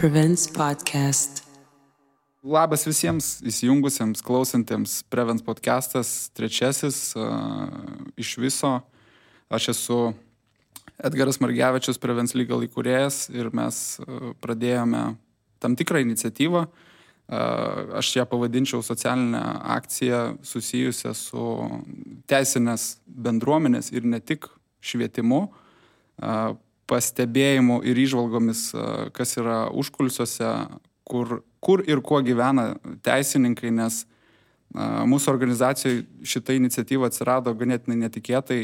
Prevents Podcast. Labas visiems įsijungusiems, klausantiems Prevents Podcastas, trečiasis iš viso. Aš esu Edgaras Margevičius, Prevents Legal įkūrėjas ir mes pradėjome tam tikrą iniciatyvą. Aš ją pavadinčiau socialinę akciją susijusią su teisinės bendruomenės ir ne tik švietimu, pastebėjimu ir įžvalgomis, kas yra užkulisiuose, kur ir kuo gyvena teisininkai, nes mūsų organizacijoje šita iniciatyva atsirado ganėtinai netikėtai,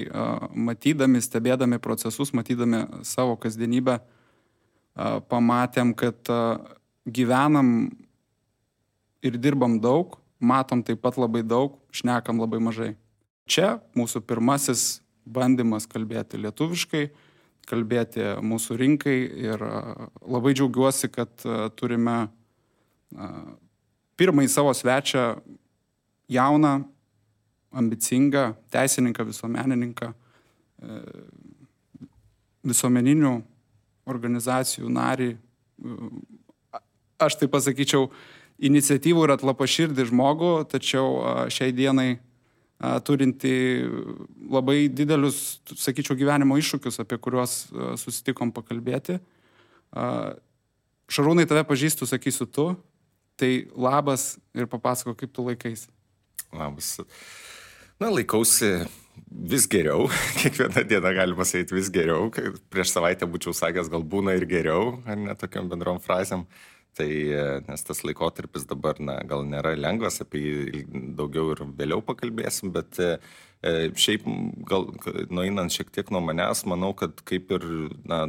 matydami, stebėdami procesus, matydami savo kasdienybę, pamatėm, kad gyvenam ir dirbam daug, matom taip pat labai daug, šnekam labai mažai. Čia mūsų pirmasis bandymas kalbėti lietuviškai, kalbėti mūsų rinkai ir labai džiaugiuosi, kad turime pirmąjį savo svečią jauną, ambicingą teisininką, visuomenininką, visuomeninių organizacijų narį. Aš tai pasakyčiau, iniciatyvų ir atlapaširdį žmogų, tačiau šiai dienai turinti labai didelius, sakyčiau, gyvenimo iššūkius, apie kuriuos susitikom pakalbėti. Šarūnai, tave pažįstu, sakysiu tu, tai labas ir papasako, kaip tu laikaisi. Labas. Laikausi vis geriau, kiekvieną dieną galima sakyti vis geriau, prieš savaitę būčiau sakęs, gal būna ir geriau, ar ne tokiam bendrom frazėm. Tai, nes tas laikotarpis dabar, gal nėra lengvas, apie jį daugiau ir vėliau pakalbėsim, bet šiaip gal nueinant šiek tiek nuo manęs, manau, kad kaip ir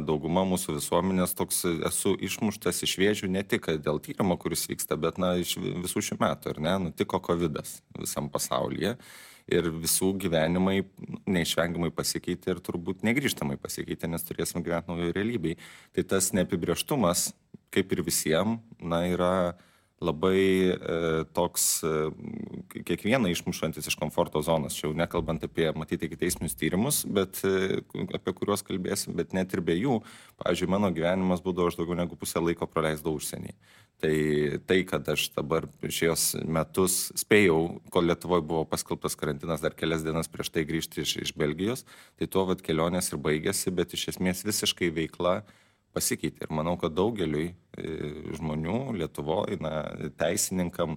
dauguma mūsų visuomenės toks esu išmuštas iš vėžių ne tik dėl tyrimo, kuris vyksta, bet iš visų šių metų, ar ne, nutiko COVIDas visam pasaulyje. Ir visų gyvenimai neišvengiamai pasikeitė ir turbūt negrįžtamai pasikeitė, nes turėsim gyventi naujoje realybėje. Tai tas neapibrėžtumas, kaip ir visiems, yra labai toks kiekvieną išmušantis iš komforto zonos. Čia jau nekalbant apie, matyti, ikiteisminius tyrimus, bet apie kuriuos kalbėsim, bet net ir be jų. Pavyzdžiui, mano gyvenimas būdavo, aš daugiau negu pusę laiko praleisdavau užsienyje. Tai, kad aš dabar šios metus spėjau, kol Lietuvoje buvo paskelbtas karantinas dar kelias dienas prieš tai grįžti iš Belgijos, tai tuo kelionės ir baigėsi, bet iš esmės visiškai veikla pasikeitė. Ir manau, kad daugeliui žmonių Lietuvoje, teisininkam,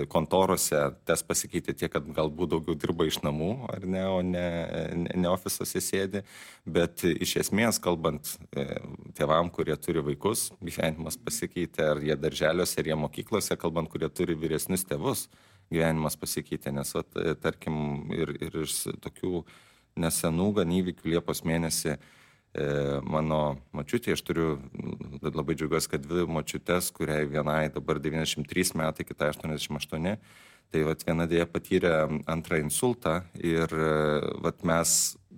kontorose tas pasikeitė tiek, kad galbūt daugiau dirba iš namų, ar ne, o ne ofisuose sėdi. Bet iš esmės, kalbant tėvam, kurie turi vaikus, gyvenimas pasikeitė, ar jie darželiuose, ar jie mokyklose, kalbant, kurie turi vyresnius tėvus, gyvenimas pasikeitė. Nes, tarkim, ir iš tokių nesenų gan įvykių Liepos mėnesį mano močiutė, aš turiu labai džiaugiuosi, kad dvi močiutės, kuriai vienai dabar 93 metai, kitai 88, tai viena dėja patyrė antrą insultą ir mes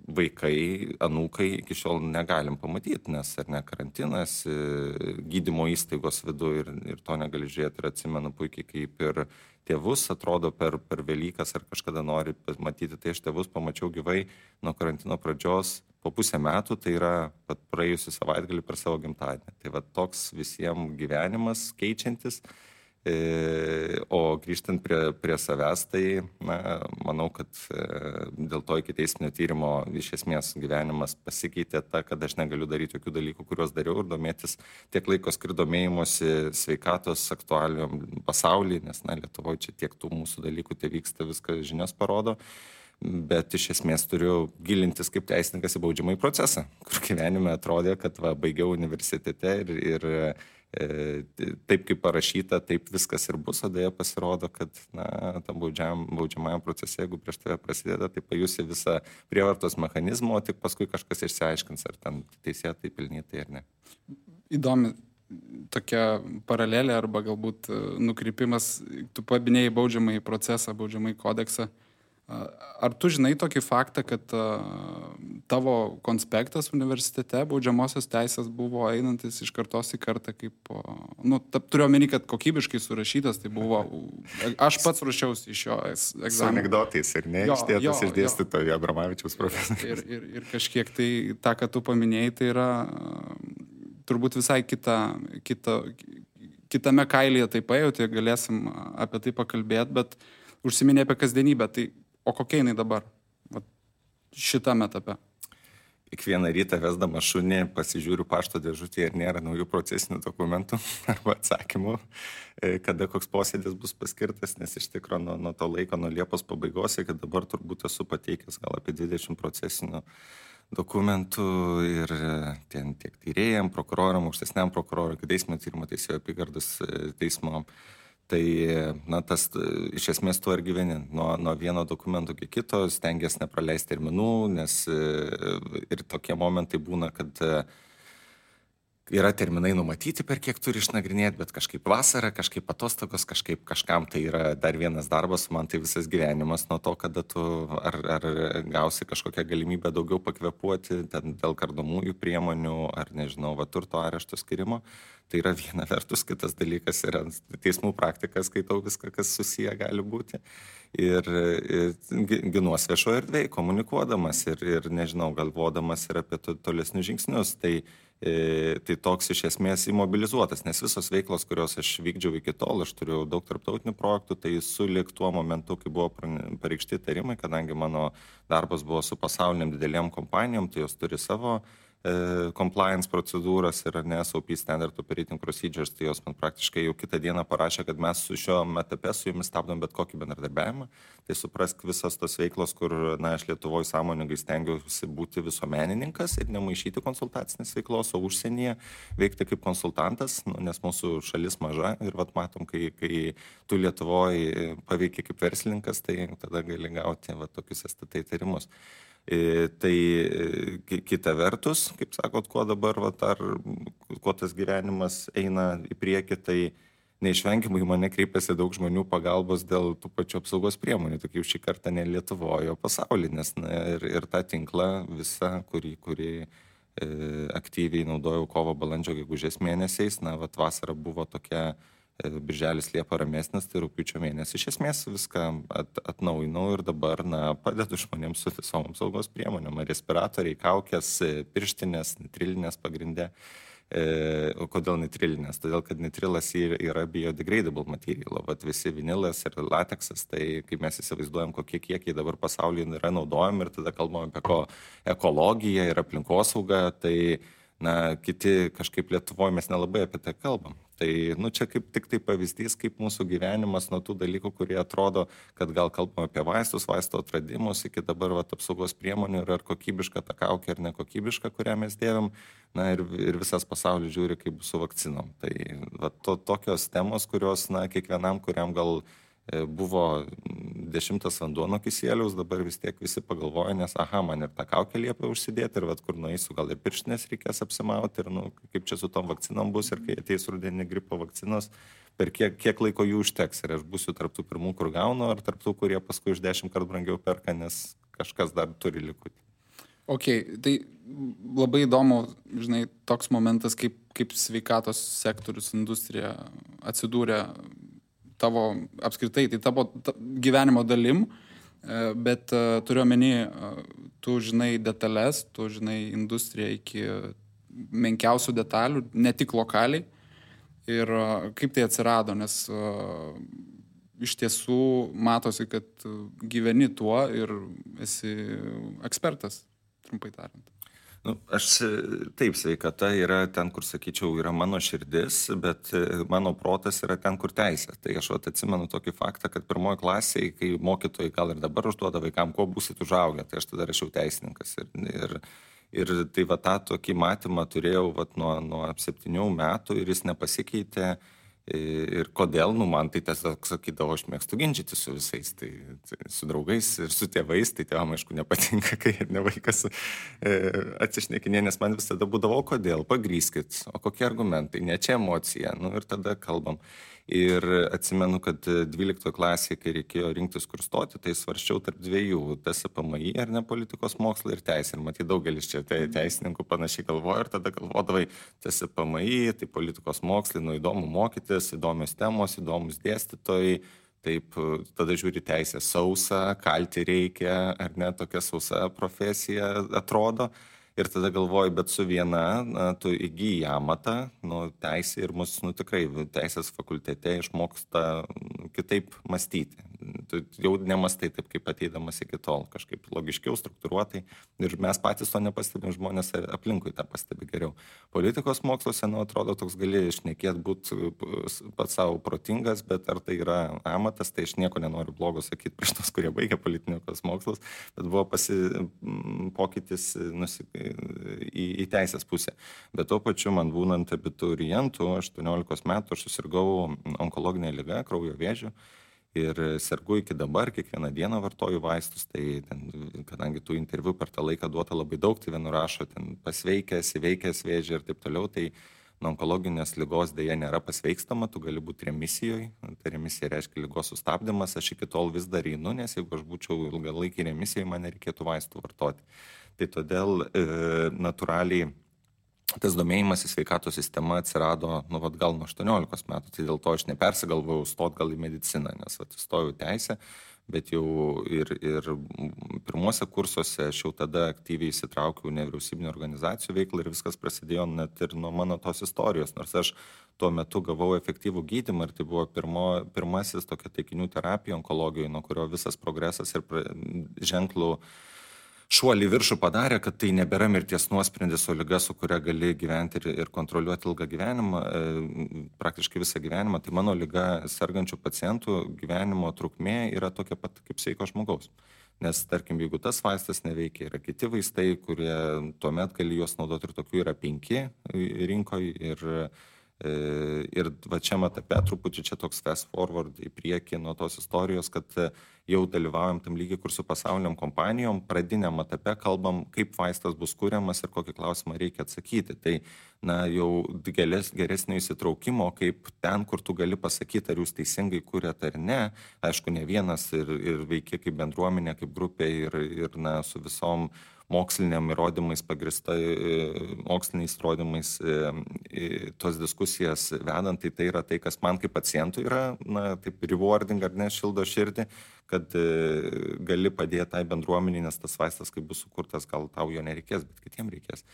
vaikai, anūkai iki šiol negalim pamatyti, nes ar ne karantinas, gydymo įstaigos vidu ir to negali žiūrėti. Ir atsimenu puikiai, kaip ir tėvus atrodo per Velykas ar kažkada nori matyti, tai aš tėvus pamačiau gyvai nuo karantino pradžios po pusę metų, tai yra praėjusią savaitgalį per savo gimtadienį. Tai toks visiems gyvenimas keičiantis, o grįžtant prie savęs, tai manau, kad dėl to ikiteisminio tyrimo iš esmės gyvenimas pasikeitė kad aš negaliu daryti jokių dalykų, kuriuos dariau, ir domėtis tiek laiko skiriu domėjimosi sveikatos aktualijom pasaulyje, nes Lietuvoje čia tiek tų mūsų dalykų tai vyksta, viską žinios parodo. Bet iš esmės turiu gilintis kaip teisininkas į baudžiamąjį procesą, kur gyvenime atrodė, kad baigiau universitete ir taip kaip parašyta, taip viskas ir bus, o dėja pasirodo, kad tam baudžiamajam procese, jeigu prieš tave prasideda, tai pajusi visą prievartos mechanizmą, o tik paskui kažkas išsiaiškins, ar ten teisėtai, pelnytai ar ne. Įdomi tokia paralelė arba galbūt nukrypimas, tu paminėjai baudžiamąjį procesą, baudžiamąjį kodeksą. Ar tu žinai tokį faktą, kad tavo konspektas universitete baudžiamosios teisės buvo einantis iš kartos į kartą kaip, turiu omeny, kad kokybiškai surašytas, tai buvo, aš pats ruošiausi iš jo egzamino. Su anekdotais ir ne, išdėtas iš dėstytojo Abramavičiaus profesoriaus. Ir kažkiek tai tą, ką tu paminėjai, tai yra turbūt visai kitame kailyje tai pajauti, galėsim apie tai pakalbėti, bet užsiminė apie kasdienybę. Tai, o kokia jinai dabar šitame etape? Kiekvieną rytą vesdama šunį pasižiūriu pašto dėžutėje, ar nėra naujų procesinių dokumentų arba atsakymų, kada koks posėdis bus paskirtas, nes iš tikrųjų nuo to laiko, nuo Liepos pabaigos, kad dabar turbūt esu pateikęs gal apie 20 procesinių dokumentų ir tiek tyrėjam, prokuroram, aukštesniam prokurorui, teismo tyrimo teisėjo apygardos teismo. Tai, tas iš esmės tuo ir gyveni. Nuo vieno dokumento iki kito stengiasi nepraleisti terminų, nes ir tokie momentai būna, kad yra terminai numatyti, per kiek turi išnagrinėti, bet kažkaip vasara, kažkaip atostogos, kažkam tai yra dar vienas darbas, man tai visas gyvenimas nuo to, kada tu ar gausi kažkokią galimybę daugiau pakvepuoti dėl kardomųjų priemonių, ar nežinau, turto arešto skirimo. Tai yra viena vertus, kitas dalykas yra teismų praktika, skaitau viską, kas susiję gali būti. Ir ginuos viešoje erdvėje, komunikuodamas ir nežinau, galvodamas ir apie tolesnius žingsnius. Tai toks iš esmės imobilizuotas, nes visos veiklos, kurios aš vykdžiau iki tol, aš turiu daug tarptautinių projektų, tai sulig tuo momentu, kai buvo pareikšti tarimai, kadangi mano darbas buvo su pasauliniam didelėm kompanijom, tai jos turi savo compliance procedūras ir SOP Standard Operating Procedures, tai jos man praktiškai jau kitą dieną parašė, kad mes su šio etape su jumis stabdom bet kokį bendradarbiavimą. Tai suprask visas tos veiklos, kur aš Lietuvoje sąmoningai stengiausi būti visuomenininkas ir nemaišyti konsultacinės veiklos, o užsienyje veikti kaip konsultantas, nes mūsų šalis maža ir matom, kai tu Lietuvoje paveikia kaip verslininkas, tai tada gali gauti tokius STT įtarimus. Tai kita vertus, kaip sakot, kuo dabar, kuo tas gyvenimas eina į priekį, tai neišvengiamai mane kreipiasi daug žmonių pagalbos dėl tų pačių apsaugos priemonių, tokių šį kartą ne Lietuvoje, o pasaulyje, nes ir tą tinklą visą, kurį aktyviai naudojau kovo, balandžio, gegužės mėnesiais, vasara buvo tokia, birželis Liepa ramesnis, tai rugpjūčio mėnesį. Iš esmės viską atnaujinau ir dabar padedu žmonėms su visom apsaugos priemonėm. Respiratoriai, kaukės, pirštinės, nitrilinės pagrindė. Kodėl nitrilinės? Todėl, kad nitrilas yra biodegradable material. Visi vinilas ir lateksas, tai kai mes įsivaizduojam, kokie kiekiai dabar pasaulyje yra naudojami ir tada kalbam apie ekologiją ir aplinkosaugą, tai kiti kažkaip Lietuvoje mes nelabai apie tai kalbam. Tai čia kaip tik tai pavyzdys, kaip mūsų gyvenimas nuo tų dalykų, kurie atrodo, kad gal kalbam apie vaistus, vaisto atradimus, iki dabar apsaugos priemonių ir ar kokybiška ta kaukė ar nekokybiška, kurią mes dėvim, ir visas pasaulis žiūri, kaip bus su vakcinom. Tai tokios temos, kurios kiekvienam, kuriam gal buvo 10 vanduo nuo kisieliaus, dabar vis tiek visi pagalvoja, nes man ir tą kaukę liepia užsidėti, ir kur nueisiu, gal ir pirštinės reikės apsimauti, ir kaip čia su tom vakcinom bus, ir kai ateis rudenį gripo vakcinos, per kiek laiko jų užteks, ir aš būsiu tarptų pirmų, kur gaunu, ar tarptų, kurie paskui už 10 kartų brangiau perka, nes kažkas dar turi likutį. Ok, tai labai įdomu, žinai, toks momentas, kaip sveikatos sektorius, industrija atsidūrė tavo apskritai, tai tavo gyvenimo dalim, bet turiu omeny, tu žinai detalės, tu žinai industriją iki menkiausių detalių, ne tik lokaliai. Ir kaip tai atsirado, nes iš tiesų matosi, kad gyveni tuo ir esi ekspertas, trumpai tariant. Taip, sveikata yra ten, kur, sakyčiau, yra mano širdis, bet mano protas yra ten, kur teisė. Tai aš atsimenu tokį faktą, kad pirmoji klasėje, kai mokytojai gal ir dabar užduoda vaikam, kuo būsit užaugę, tai aš tada rašiau teisininkas. Ir tai tą tokį matymą turėjau nuo 7 metų ir jis nepasikeitė. Ir kodėl, man tai tiesiog sakydavo, aš mėgstu ginčyti su visais, tai su draugais ir su tėvais, tai tėvam, aišku, nepatinka, kai ne vaikas atsišnekinė, nes man visada būdavo, kodėl, pagrįskit, o kokie argumentai, ne čia emocija, ir tada kalbam. Ir atsimenu, kad 12 klasėje, kai reikėjo rinktis kur stoti, tai svarsčiau tarp dviejų, TSPMI ar ne politikos mokslai ir teisė. Ir matyt, daugelis čia teisininkų panašiai galvoja ir tada galvodavai TSPMI, tai politikos mokslai, įdomu mokytis, įdomios temos, įdomus dėstytojai. Taip, tada žiūri teisę sausa, kalti reikia, ar ne, tokia sausa profesija atrodo. Ir tada galvoju, bet su viena, tu įgyji amatą, teisė ir mus, tikrai teisės fakultete išmoksta kitaip mąstyti. Tu jau nemastai taip, kaip ateidamas iki tol, kažkaip logiškiau, struktūruotai. Ir mes patys to nepastebim, žmonės aplinkui tą pastebi geriau. Politikos moksluose, atrodo, toks gali šnekėti, būti pats savo protingas, bet ar tai yra amatas, tai aš nieko nenoriu blogo sakyti prieš tos, kurie baigia politikos mokslus, bet buvo pokytis į teisės pusę. Bet tuo pačiu man būnant abiturientų, 18 metų, aš susirgau onkologinę ligą, kraujo vėžiu. Ir sergu iki dabar, kiekvieną dieną vartoju vaistus, tai kadangi tų interviu per tą laiką duota labai daug, tai vienu rašo pasveikęs, įveikęs vėžį ir taip toliau, tai nuo onkologinės ligos dėja nėra pasveikstama, tu gali būti remisijoje, tai remisija reiškia ligos sustabdymas, aš iki tol vis dar einu, nes jeigu aš būčiau ilgalaikį remisijoje, man nereikėtų vaistų vartoti. Tai todėl natūraliai tas domėjimas į sveikatos sistemą atsirado, gal nuo 18 metų, tai dėl to aš nepersigalvojau stot gal į mediciną, nes įstojau teisę, bet jau ir pirmuose kursuose aš jau tada aktyviai įsitraukiau nevyriausybinių organizacijų veiklą ir viskas prasidėjo net ir nuo mano tos istorijos, nors aš tuo metu gavau efektyvų gydymą ir tai buvo pirmasis tokia taikinių terapija onkologijoje, nuo kurio visas progresas ir ženklų šuolį viršų padarė, kad tai nebėra mirties nuosprendis, o liga, su kuria gali gyventi ir kontroliuoti ilgą gyvenimą, praktiškai visą gyvenimą. Tai mano liga sergančių pacientų gyvenimo trukmė yra tokia pat kaip sveiko žmogaus. Nes, tarkim, jeigu tas vaistas neveikia, yra kiti vaistai, kurie tuomet gali juos naudoti ir tokių yra 5 rinkoje ir va čia etape truputį čia toks fast forward į priekį nuo tos istorijos, kad jau dalyvaujam tam lygiai, kur su pasauliniam kompanijom pradiniam etape kalbam, kaip vaistas bus kuriamas ir kokį klausimą reikia atsakyti. Tai jau geresnio įsitraukimo, kaip ten, kur tu gali pasakyti, ar jūs teisingai kuriat ar ne, aišku, ne vienas ir veikia kaip bendruomenė, kaip grupė ir su visom moksliniam įrodymais pagrįsta, moksliniais įrodymais tos diskusijas vedant, tai yra tai, kas man kaip pacientui yra, taip rewarding ar ne, šildo širdį, kad gali padėti tai bendruomenį, nes tas vaistas, kai bus sukurtas, gal tau jo nereikės, bet kitiem reikės.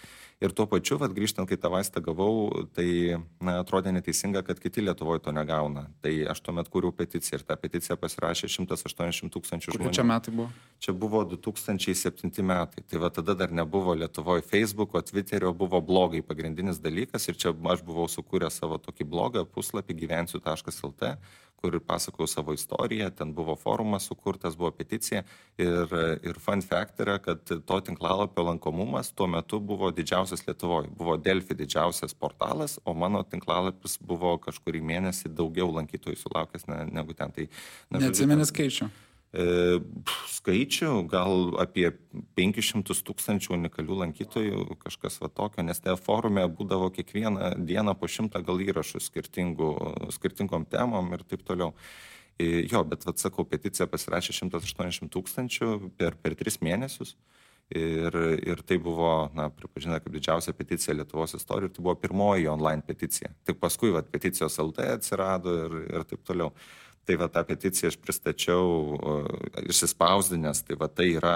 Ir tuo pačiu, grįžtant, kai tą vaistą gavau, tai atrodė neteisinga, kad kiti Lietuvoje to negauna. Tai aš tuomet kūriau peticiją ir tą peticiją pasirašė 180 000 žmonių. Kur čia metai buvo? Čia buvo 2007 metai. Tai tada dar nebuvo Lietuvoje Facebooko, Twitterio, buvo blogai pagrindinis dalykas ir čia aš buvau sukūręs savo tokį blogą puslapį gyvensiu.lt, kur pasakojau savo istoriją, ten buvo forumas sukurtas, buvo peticija ir fun fact yra, kad to tinklalapio lankomumas tuo metu buvo didžiausias Lietuvoje. Buvo Delfi didžiausias portalas, o mano tinklalapis buvo kažkurį mėnesį daugiau lankytojų sulaukęs negu ten. Tai, neatsimeni skaičių? Skaičių, gal apie 500 000 unikalių lankytojų, kažkas tokio, nes te forume būdavo kiekvieną dieną po 100 gal įrašų skirtingom temom ir taip toliau. Jo, bet sakau, peticija pasirašė 180 000 per 3 mėnesius. Ir tai buvo, pripažinta kaip didžiausia peticija Lietuvos istorijoje, ir tai buvo pirmoji online peticija. Tik paskui peticijos LT atsirado ir taip toliau. Tai tą peticiją aš pristačiau išsispausdinęs, tai yra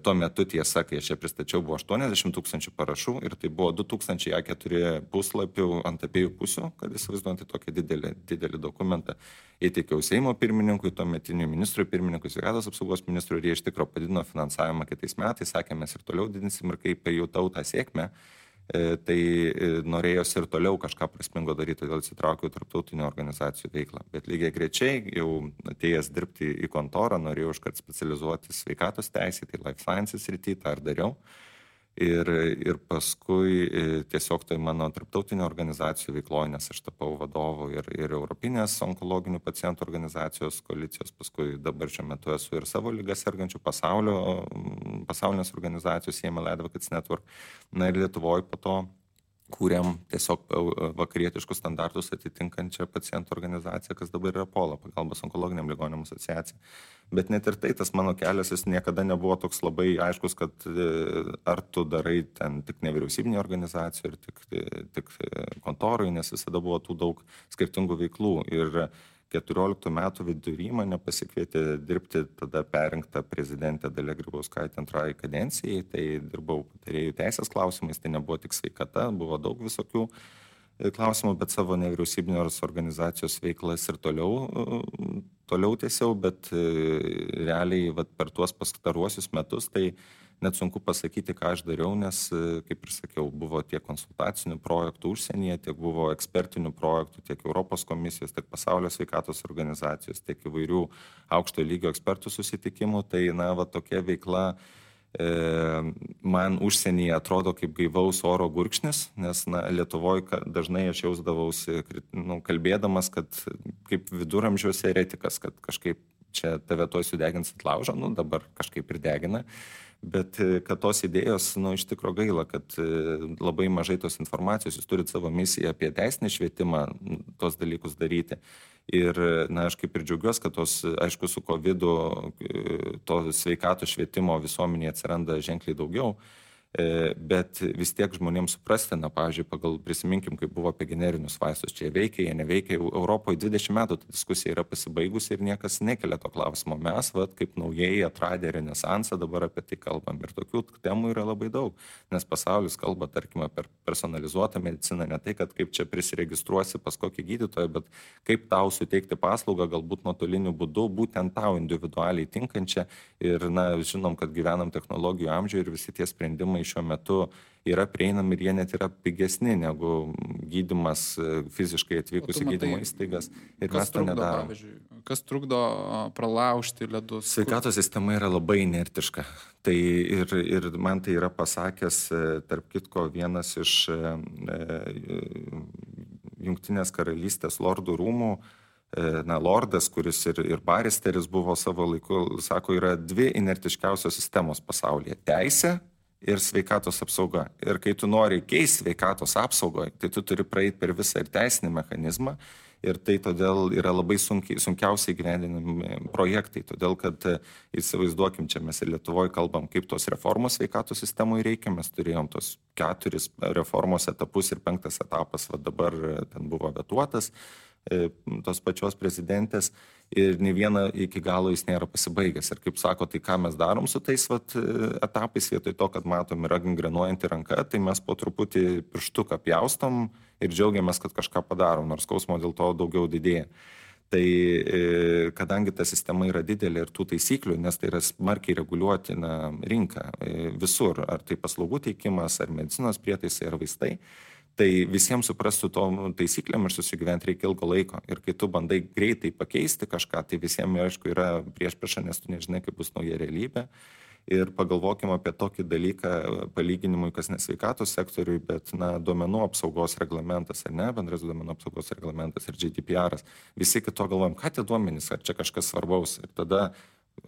tuo metu tiesa, kai aš ją pristačiau, buvo 80 000 parašų ir tai buvo 2000 A4 puslapių ant abiejų pusių, kad įsivaizduojant tokį didelį dokumentą. Įteikiau Seimo pirmininkui, tuometiniui ministrui pirmininkui, sveikatos apsaugos ministrui, ir jie iš tikro padidino finansavimą kitais metais, sakė, mes ir toliau didinsim, ir kaip pajutau tą sėkmę, tai norėjosi ir toliau kažką prasmingo daryti, todėl įsitraukiau tarptautinių organizacijų veiklą. Bet lygiai grečiai, jau atėjęs dirbti į kontorą, norėjau iškart specializuoti sveikatos teisė, tai life sciences srity, tą ir dariau. Ir paskui tiesiog tai mano tarptautinio organizacijų veikloje, nes aš tapau vadovu ir Europinės onkologinių pacientų organizacijos koalicijos, paskui dabar šiuo metu esu ir savo ligas sergančių pasaulinės organizacijos CML Advocates Network. Ir Lietuvoje po to kūrėm tiesiog vakarietiškus standartus atitinkančią pacientų organizaciją, kas dabar yra POLA, pagalbos onkologiniam ligonėm asociacija. Bet net ir tai, tas mano kelias, jis niekada nebuvo toks labai aiškus, kad ar tu darai ten tik nevyriausybinį organizacijų ir tik kontorui, nes visada buvo tų daug skirtingų veiklų. Ir 14 metų vidury mane pasikvietė dirbti tada perrinktą prezidentę Dalią Grybauskaitę antrai kadencijai, tai dirbau patarėjų teisės klausimais, tai nebuvo tik sveikata, buvo daug visokių klausimų, bet savo nevyriausybinės organizacijos veiklas ir toliau tiesiau, bet realiai per tuos pastaruosius metus tai net sunku pasakyti, ką aš dariau, nes, kaip ir sakiau, buvo tiek konsultacinių projektų užsienyje, tiek buvo ekspertinių projektų, tiek Europos komisijos, tiek Pasaulio sveikatos organizacijos, tiek įvairių aukšto lygio ekspertų susitikimų. Tai, tokia veikla man užsienyje atrodo kaip gaivaus oro gurkšnis, nes Lietuvoje dažnai aš jausdavausi, kalbėdamas, kad kaip viduramžiuose eretikas, kad kažkaip čia tave tuoj sudegins ant laužo, dabar kažkaip ir degina. Bet kad tos idėjos, iš tikro gaila, kad labai mažai tos informacijos, jūs turit savo misiją apie teisinį švietimą, tos dalykus daryti. Ir, aš kaip ir džiaugiuosi, kad tos, aišku, su COVID-u to sveikatos švietimo visuomenėje atsiranda ženkliai daugiau, bet vis tiek žmonėms suprasti, pavyzdžiui, prisiminkim, kaip buvo apie generinius vaistus, čia veikia, jie neveikia, Europoje 20 metų ta diskusija yra pasibaigusi ir niekas nekelia to klausimo. Mes, kaip naujai atradę renesansą, dabar apie tai kalbam ir tokių temų yra labai daug, nes pasaulis kalba, tarkime, per personalizuotą mediciną, ne tai, kad kaip čia prisiregistruosi pas kokį gydytoją, bet kaip tau suteikti paslaugą, galbūt nuotoliniu būdu, būtent tau individualiai tinkančią ir, žinom, kad gyvenam technologijų amžiuje ir visi tie sprendimai šiuo metu yra prieinami ir jie net yra pigesni negu gydymas fiziškai atvykus į gydymo įstaigas. Ir mes to nedarom. Kas trukdo pralaužti ledus? Sveikatos sistema yra labai inertiška. Tai ir man tai yra pasakęs, tarp kitko, vienas iš Jungtinės karalystės lordų rūmų, lordas, kuris ir baristeris buvo savo laiku, sako, yra dvi inertiškiausios sistemos pasaulyje - teisė ir sveikatos apsauga. Ir kai tu nori keisti sveikatos apsaugoje, tai tu turi praeiti per visą ir teisinį mechanizmą. Ir tai todėl yra labai sunkiausiai gyvendinami projektai. Todėl, kad įsivaizduokim, čia mes ir Lietuvoje kalbam, kaip tos reformos sveikatos sistemoje reikia. Mes turėjom tos 4 reformos etapus ir 5 etapas dabar ten buvo vetuotas tos pačios prezidentės ir nei viena iki galo jis nėra pasibaigęs. Ir kaip sako, tai ką mes darom su tais etapais, vietoj to, kad matom yra gangrenuojanti ranka, tai mes po truputį pirštuką pjaustom ir džiaugiamės, kad kažką padarom, nors skausmo dėl to daugiau didėja. Tai kadangi ta sistema yra didelė ir tų taisyklių, nes tai yra smarkiai reguliuotina rinka visur, ar tai paslaugų teikimas, ar medicinos prietaisai, ar vaistai, tai visiems suprastų tom taisyklėm ir susigyventi reikia ilgo laiko. Ir kai tu bandai greitai pakeisti kažką, tai visiems, aišku, yra priešprieša, nes tu nežinai, kaip bus nauja realybė. Ir pagalvokime apie tokį dalyką palyginimui, kas ne sveikatos sektoriui, bet duomenų apsaugos reglamentas, ar ne, bendras duomenų apsaugos reglamentas ir GDPR. Visi kito galvojam, ką tie duomenys, ar čia kažkas svarbaus. Ir tada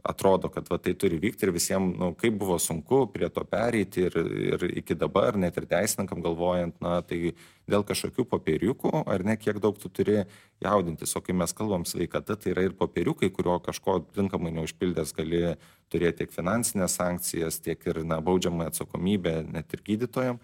atrodo, kad tai turi vykti ir visiems, kaip buvo sunku prie to pereiti ir iki dabar, net ir teisininkam galvojant, tai dėl kažkokių popieriukų, ar ne, kiek daug tu turi jaudintis. O kai mes kalbam sveikata, tai yra ir popieriukai, kurio kažko tinkamai neužpildęs gali turėti tiek finansinės sankcijas, tiek ir baudžiamą atsakomybę net ir gydytojam.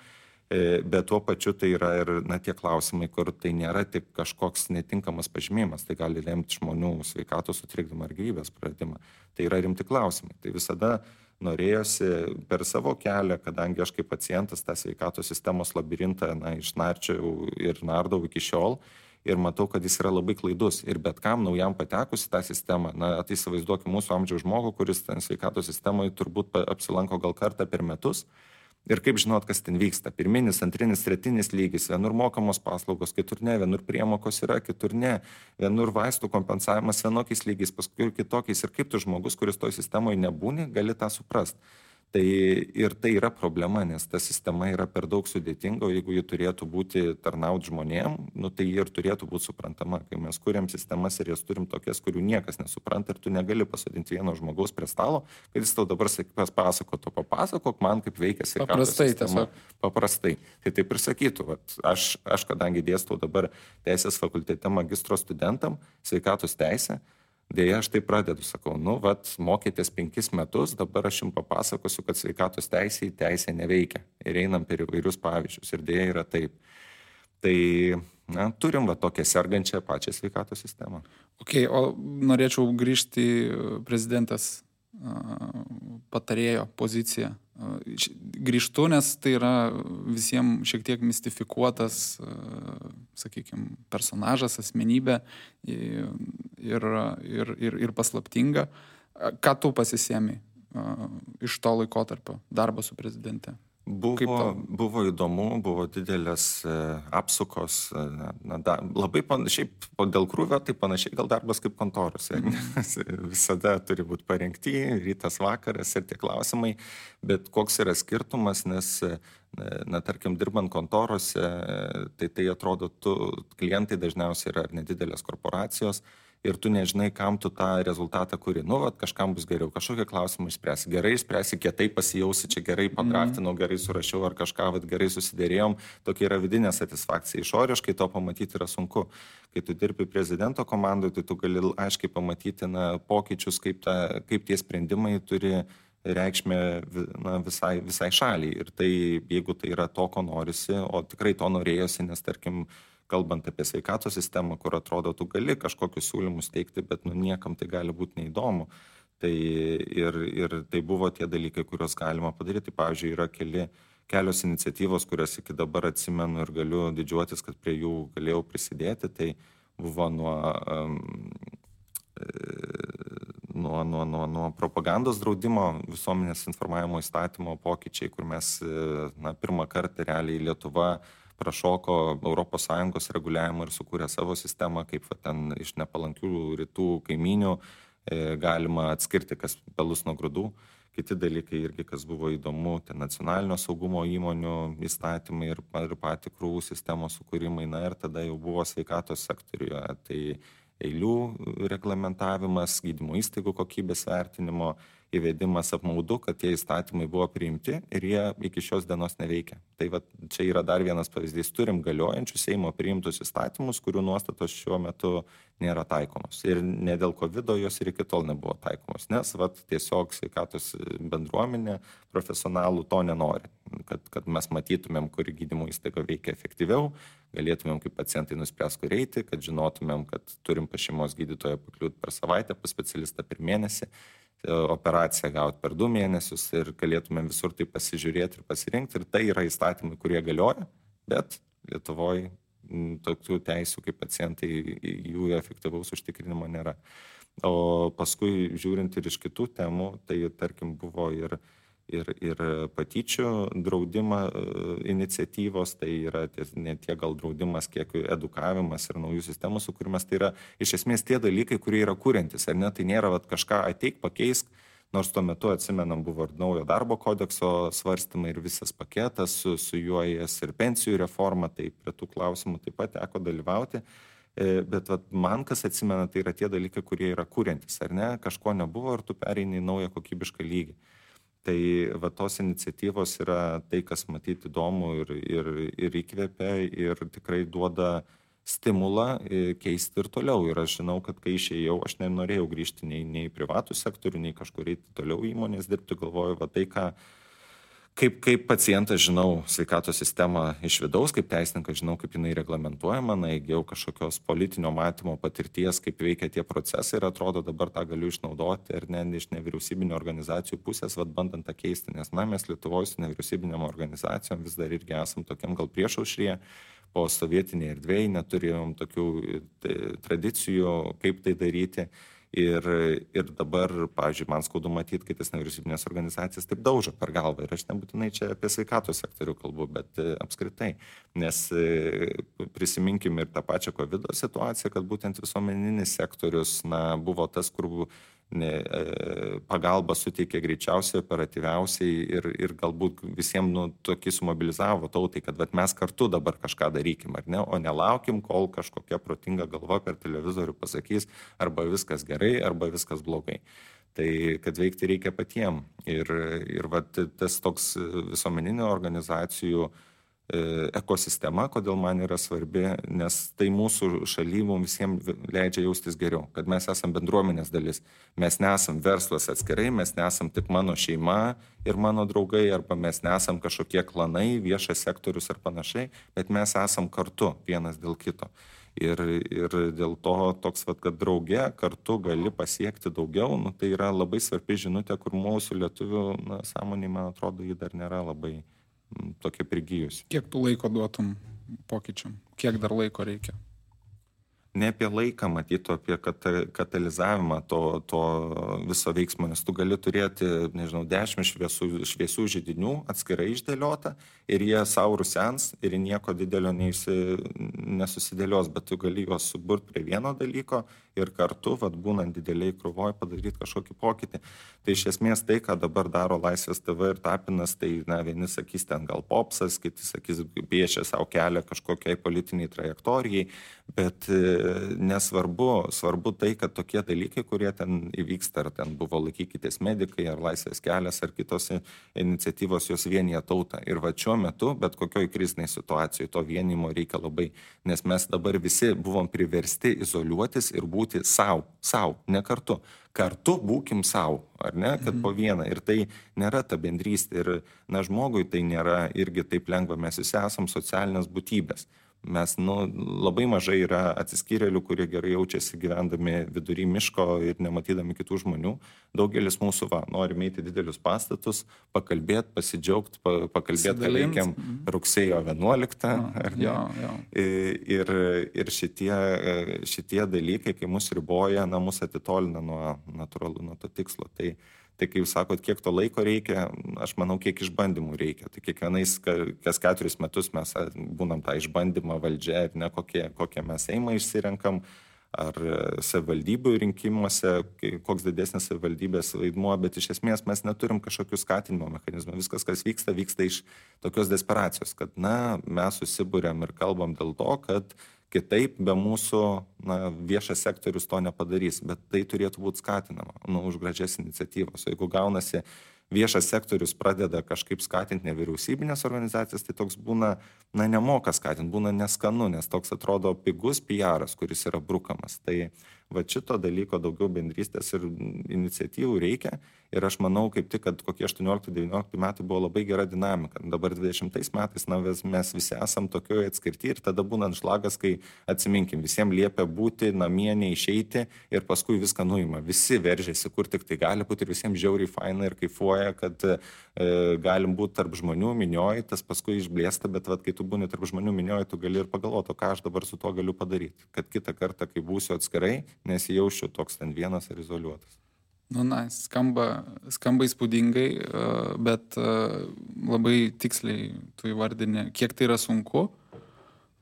Bet tuo pačiu tai yra ir tie klausimai, kur tai nėra tik kažkoks netinkamas pažymėjimas, tai gali lemti žmonių sveikatos sutrikdymą ar gyvybės praradimą. Tai yra rimti klausimai. Tai visada norėjosi per savo kelią, kadangi aš kaip pacientas tą sveikatos sistemos labirintą išnarčiau ir nardau iki šiol ir matau, kad jis yra labai klaidus. Ir bet kam naujam patekus į tą sistemą, tai įsivaizduokim mūsų amžiaus žmogų, kuris ten sveikatos sistemoje turbūt apsilanko gal kartą per metus. Ir kaip žinot, kas ten vyksta. Pirminis, antrinis, tretinis lygis, vienur mokamos paslaugos, kitur ne, vienur priemokos yra, kitur ne, vienur vaistų kompensavimas vienokiais lygiais, paskui kitokiais. Ir kaip tu žmogus, kuris toj sistemoje nebūni, gali tą suprasti. Tai ir tai yra problema, nes ta sistema yra per daug sudėtinga, o jeigu ji turėtų būti tarnauti žmonėm, tai ji ir turėtų būti suprantama. Kai mes kuriam sistemas ir jas turim tokias, kurių niekas nesupranta ir tu negali pasodinti vieno žmogaus prie stalo, kad jis tau dabar papasakok man, kaip veikia sveikatos sistema. Paprastai. Tai taip ir sakytų, aš kadangi dėstau dabar teisės fakultete magistro studentam sveikatos teisę, dėja, aš tai pradedu, sakau, mokėtės 5 metus, dabar aš jums papasakosiu, kad sveikatos teisė neveikia. Ir einam per įvairius pavyzdžius. Ir dėja yra taip. Tai na, turim va tokią sergančią pačią sveikatos sistemą. Okay, o norėčiau grįžti į prezidentės patarėjo poziciją. Grįžtu, nes tai yra visiems šiek tiek mistifikuotas, sakykime, personažas, asmenybė ir paslaptinga. Ką tu pasisėmei iš to laikotarpio darbo su prezidente? Buvo įdomu, buvo didelės apsukos, labai panašiai, dėl krūvio, tai panašiai gal darbas kaip kontorose. Visada turi būti parengti, rytas, vakaras ir tie klausimai, bet koks yra skirtumas, nes, tarkim, dirbant kontorose, tai atrodo, klientai dažniausiai yra nedidelės korporacijos, ir tu nežinai, kam tu tą rezultatą kuri. Kažkam bus geriau, kažkokią klausimą išspręsi. Gerai išspręsi, kietai pasijausi, čia gerai padraftinau, gerai surašiau ar kažką, gerai susidėrėjom. Tokia yra vidinė satisfakcija. Išoriškai to pamatyti yra sunku. Kai tu dirbi prezidento komandoje, tai tu gali aiškiai pamatyti pokyčius, kaip tie sprendimai turi reikšmę visai šaliai. Ir tai, jeigu tai yra to, ko norisi, o tikrai to norėjosi, nes tarkim, kalbant apie sveikatos sistemą, kur atrodo, tu gali kažkokius siūlymus teikti, bet niekam tai gali būti neįdomu. Tai ir tai buvo tie dalykai, kuriuos galima padaryti. Pavyzdžiui, yra kelios iniciatyvos, kurias iki dabar atsimenu ir galiu didžiuotis, kad prie jų galėjau prisidėti. Tai buvo nuo propagandos draudimo, visuomenės informavimo įstatymo pokyčiai, kur mes pirmą kartą realiai Lietuva prašoko ES reguliavimą ir sukūrė savo sistemą, kaip ten iš nepalankių rytų kaiminių galima atskirti, kas pelus nuo grūdų. Kiti dalykai irgi, kas buvo įdomu, tai nacionalinio saugumo įmonių įstatymai ir patikrų sistemos sukūrimai, ir tada jau buvo sveikatos sektoriuje, tai eilių reglamentavimas, gydymo įstaigų kokybės vertinimo įvedimas. Apmaudu, kad tie įstatymai buvo priimti ir jie iki šios dienos neveikia. Tai čia yra dar vienas pavyzdys. Turim galiojančius Seimo priimtus įstatymus, kurių nuostatos šiuo metu nėra taikomos. Ir ne dėl COVID jos ir iki tol nebuvo taikomos, nes tiesiog sveikatos bendruomenė profesionalų to nenori. Kad mes matytumėm, kur gydymo įstaiga veikia efektyviau, galėtumėm kaip pacientai nuspręs, kur eiti, kad žinotumėm, kad turim pas šeimos gydytoją pakliūti per savaitę, pas specialistą per mėnesį, operaciją gauti per 2 mėnesius ir galėtumėm visur tai pasižiūrėti ir pasirinkti. Ir tai yra įstatymai, kurie galioja, bet Lietuvoje tokių teisių kaip pacientai, jų efektyvaus užtikrinimo nėra. O paskui žiūrint ir iš kitų temų, tai tarkim buvo ir patyčių draudimą iniciatyvos, tai yra ne tiek gal draudimas, kiek edukavimas ir naujų sistemų sukūrimas, tai yra iš esmės tie dalykai, kurie yra kuriantis, ar ne, tai nėra kažką ateik, pakeisk, nors tuo metu atsimenam buvo ir naujo darbo kodekso svarstymai ir visas paketas, su juo ir pensijų reforma, tai prie tų klausimų taip pat teko dalyvauti. Bet man kas atsimena, tai yra tie dalykai, kurie yra kuriantis, ar ne, kažko nebuvo ir tu pereini į naują kokybišką lygį. Tai tos iniciatyvos yra tai, kas matyti įdomu ir įkvėpia ir tikrai duoda stimulą keisti ir toliau. Ir aš žinau, kad kai išėjau, aš nenorėjau grįžti nei į privatų sektorių, nei kažkur eiti toliau įmonės dirbti, galvoju, tai kaip pacientas žinau sveikatos sistemą iš vidaus, kaip teisininkas žinau, kaip jinai reglamentuojama, įgijau kažkokios politinio matymo patirties, kaip veikia tie procesai ir atrodo dabar tą galiu išnaudoti ir iš nevyriausybinio organizacijų pusės, bandant tą keisti, nes mes Lietuvoje su nevyriausybinėm organizacijom vis dar irgi esam tokiam gal priešaušryje, po sovietinėje erdvėje neturėjom tokių tradicijų, kaip tai daryti. Ir dabar, pavyzdžiui, man skaudu matyti, kai tas nevyriausybinės organizacijas taip daužo per galvą. Ir aš nebūtinai čia apie sveikatos sektorių kalbu, bet apskritai. Nes prisiminkim ir tą pačią COVID situaciją, kad būtent visuomeninis sektorius buvo tas, kur pagalba suteikė greičiausiai, operatyviausiai ir galbūt visiems tokį sumobilizavo tautai, kad mes kartu dabar kažką darykim, ar ne, o nelaukim, kol kažkokia protinga galva per televizorių pasakys arba viskas gerai, arba viskas blogai. Tai kad veikti reikia patiem. Ir tas toks visuomeninių organizacijų ekosistema, kodėl man yra svarbi, nes tai mūsų šaly mums visiems leidžia jaustis geriau, kad mes esam bendruomenės dalis. Mes nesam verslas atskirai, mes nesam tik mano šeima ir mano draugai, arba mes nesam kažkokie klanai, viešas sektorius ar panašiai, bet mes esam kartu vienas dėl kito. Ir dėl to toks, kad drauge kartu gali pasiekti daugiau, tai yra labai svarbi žinutė, kur mūsų lietuvių sąmonė, man atrodo, ji dar nėra labai tokia prigijusi. Kiek tu laiko duotum pokyčiam? Kiek dar laiko reikia? Ne apie laiką matytų, apie katalizavimą to viso veiksmo, nes tu gali turėti, 10 šviesių židinių atskirai išdėliota ir jie savo rusens ir nieko didelio nesusidėlios, bet tu gali juos suburti prie vieno dalyko ir kartu, būnant dideliai krūvoj, padaryti kažkokį pokytį. Tai iš esmės tai, ką dabar daro Laisvės TV ir Tapinas, tai vieni sakys ten gal popsas, kiti sakys piešia savo kelią kažkokiai politiniai trajektorijai, bet svarbu tai, kad tokie dalykai, kurie ten įvyksta, ar ten buvo Laikykitės medikai, ar Laisvės kelias, ar kitos iniciatyvos, jos vienyje tautą. Ir šiuo metu, bet kokioj kriziniai situacijoje, to vienimo reikia labai, nes mes dabar visi buvom priversti izoliuotis ir būti sau, ne kartu. Kartu būkim sau, ar ne, kad po vieną. Ir tai nėra ta bendrystė. Ir, žmogui tai nėra irgi taip lengva. Mes visi esam socialinės būtybės. Mes, labai mažai yra atsiskyrėlių, kurie gerai jaučiasi gyvendami vidury miško ir nematydami kitų žmonių. Daugelis mūsų norime eiti didelius pastatus, pakalbėti, pasidžiaugti, pakalbėti, ką veikiam rugsėjo 11. Ar ne? Ir šitie dalykai, kai mus riboja, mus atitolina nuo to tikslo. Tai kai jūs sakot, kiek to laiko reikia, aš manau, kiek išbandymų reikia. Tai kas 4 metus mes būnam tą išbandymą valdžia ir ne kokie mes Seimą išsirenkam, ar savivaldybių rinkimuose, koks didesnis savivaldybės vaidmuo, bet iš esmės mes neturim kažkokių skatinimo mechanizmų. Viskas, kas vyksta iš tokios desperacijos, kad mes susibūrėm ir kalbam dėl to, kad kitaip be mūsų viešas sektorius to nepadarys, bet tai turėtų būti skatinama už gražias iniciatyvas. O jeigu gaunasi viešas sektorius pradeda kažkaip skatinti nevyriausybinės organizacijas, tai toks būna, nemoka skatinti, būna neskanu, nes toks atrodo pigus PR-as, kuris yra brukamas. Tai šito dalyko daugiau bendrystės ir iniciatyvų reikia. Ir aš manau, kaip tik, kad kokie 18-19 metai buvo labai gera dinamika. Dabar 20 metais mes visi esam tokioje atskirti ir tada būna šlagas, kai atsiminkim, visiems liepia būti namie, neišeiti ir paskui viską nuima. Visi veržiasi, kur tik tai gali būti ir visiems žiauriai faina ir kaifuoja, kad galim būti tarp žmonių minioji, tas paskui išblėsta, bet kai tu būni tarp žmonių minioji, tu gali ir pagalvoti, ką aš dabar su to galiu padaryti. Kad kitą kartą, kai būsiu atskirai, nesijaučiu toks ten vienas ar izoliuotas. Skamba įspūdingai, bet labai tiksliai tu įvardini, kiek tai yra sunku,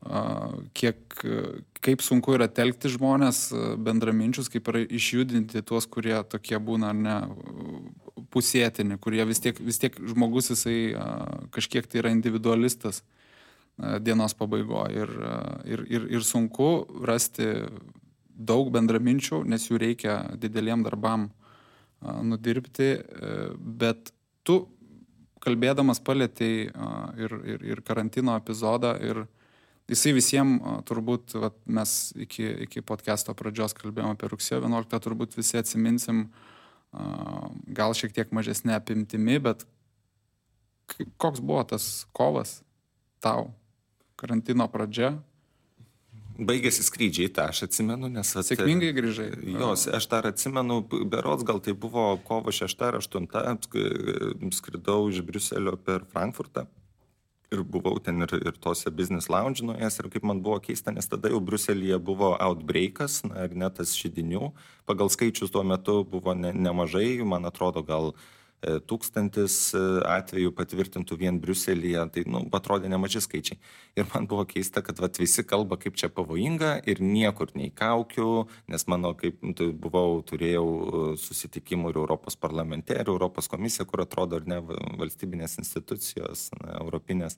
kaip sunku yra telkti žmonės bendraminčius, kaip yra išjudinti tuos, kurie tokie būna pusėtini, kurie vis tiek žmogus jisai kažkiek tai yra individualistas dienos pabaigoje ir sunku rasti daug bendraminčių, nes jų reikia dideliem darbam nudirbti, bet tu kalbėdamas palietei ir karantino epizodą ir jisai visiems turbūt, mes iki podcast'o pradžios kalbėjome apie rugsėjo 11, turbūt visi atsiminsim gal šiek tiek mažesnė apimtimi, bet koks buvo tas kovas tau, karantino pradžia? Baigėsi skrydžiai, tą aš atsimenu, nes... Sėkmingai grįžai. Jos, aš dar atsimenu, berods gal tai buvo kovo 6 ar 8, skridau iš Briuselio per Frankfurtą ir buvau ten ir tose business lounge nuėjęs ir kaip man buvo keista, nes tada jau Briuselyje buvo outbreakas, ir net tas židinių, pagal skaičius tuo metu buvo nemažai, man atrodo gal 1000 atvejų patvirtintų vien Briuselyje, tai atrodė nemaži skaičiai. Ir man buvo keista, kad visi kalba, kaip čia pavojinga ir niekur nei kaukių, nes mano, kaip turėjau susitikimų ir Europos parlamente, ir Europos komisija, kur atrodo ir ne valstybinės institucijos, europinės.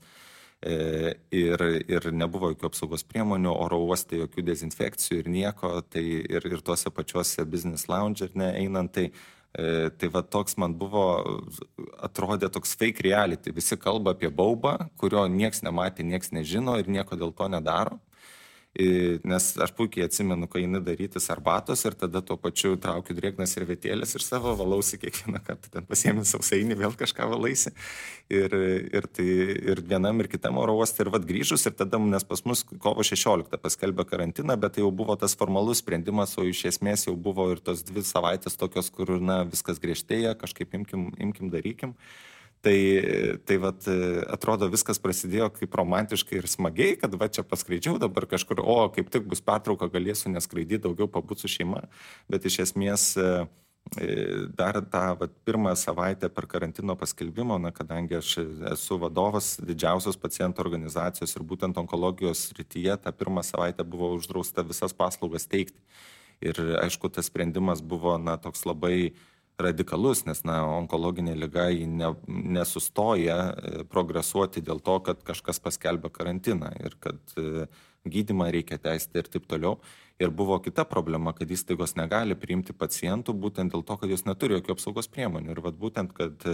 Ir nebuvo jokių apsaugos priemonių, oro uoste jokių dezinfekcijų ir nieko, tai ir tuose pačiuose business lounge ir einant, tai Tai va toks man buvo, atrodė toks fake reality. Visi kalba apie baubą, kurio nieks nematė, nieks nežino ir nieko dėl to nedaro. Nes aš puikiai atsimenu, kai eini darytis arbatos ir tada tuo pačiu traukiu drėgnas servetėlės ir savo valausi kiekvieną kartą, ten pasiemi sausainį, vėl kažką valaisi. Ir vienam ir kitam oro uoste ir vat grįžus ir tada, nes pas mus kovo 16 paskelbė karantiną, bet tai jau buvo tas formalus sprendimas, o iš esmės jau buvo ir tos 2 savaitės tokios, kur viskas griežtėja, kažkaip imkim, darykim. Tai vat, atrodo, viskas prasidėjo kaip romantiškai ir smagiai, kad va čia paskraidžiau dabar kažkur, kaip tik bus pertrauka, galėsiu neskraidyti, daugiau pabūti su šeima, bet iš esmės dar tą pirmą savaitę per karantino paskelbimo, kadangi aš esu vadovas didžiausios pacientų organizacijos ir būtent onkologijos srityje, tą pirmą savaitę buvo uždrausta visas paslaugas teikti. Ir aišku, tas sprendimas buvo toks labai radikalus, nes onkologinė liga nesustoja progresuoti dėl to, kad kažkas paskelbė karantiną ir kad gydymą reikia tęsti ir taip toliau. Ir buvo kita problema, kad įstaigos negali priimti pacientų būtent dėl to, kad jos neturi jokių apsaugos priemonių. Ir būtent, kad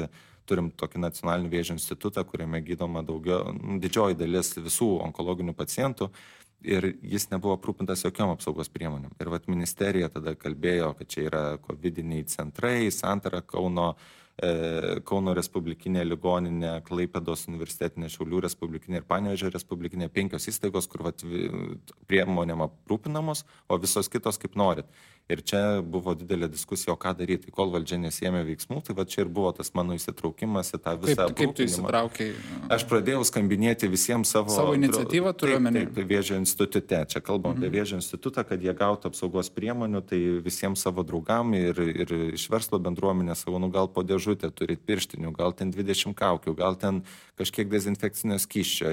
turim tokį nacionalinį vėžio institutą, kuriame gydoma didžioji dalis visų onkologinių pacientų. Ir jis nebuvo aprūpintas jokiom apsaugos priemonėm. Ir ministerija tada kalbėjo, kad čia yra covidiniai centrai, Santara Kauno Respublikinė ligoninė, Klaipėdos universitetinė, Šiaulių Respublikinė ir Panevėžio Respublikinė, 5 įstaigos, kur priemonėm aprūpinamos, o visos kitos kaip norit. Ir čia buvo didelė diskusija, o ką daryti, kol valdžia nesėmė veiksmų, tai čia ir buvo tas mano įsitraukimas į tą visą aprūpinimą. Kaip tu įsitraukiai? Aš pradėjau skambinėti visiems savo iniciatyvą turiu omeny. Taip, Vėžio institute. Čia kalbam apie Vėžio institutą, kad jie gautų apsaugos priemonių, tai visiems savo draugam ir iš verslo bendruomenės savo, gal po dėžutę turit pirštinių, gal ten 20 kaukių, gal ten kažkiek dezinfekcinio skysčio.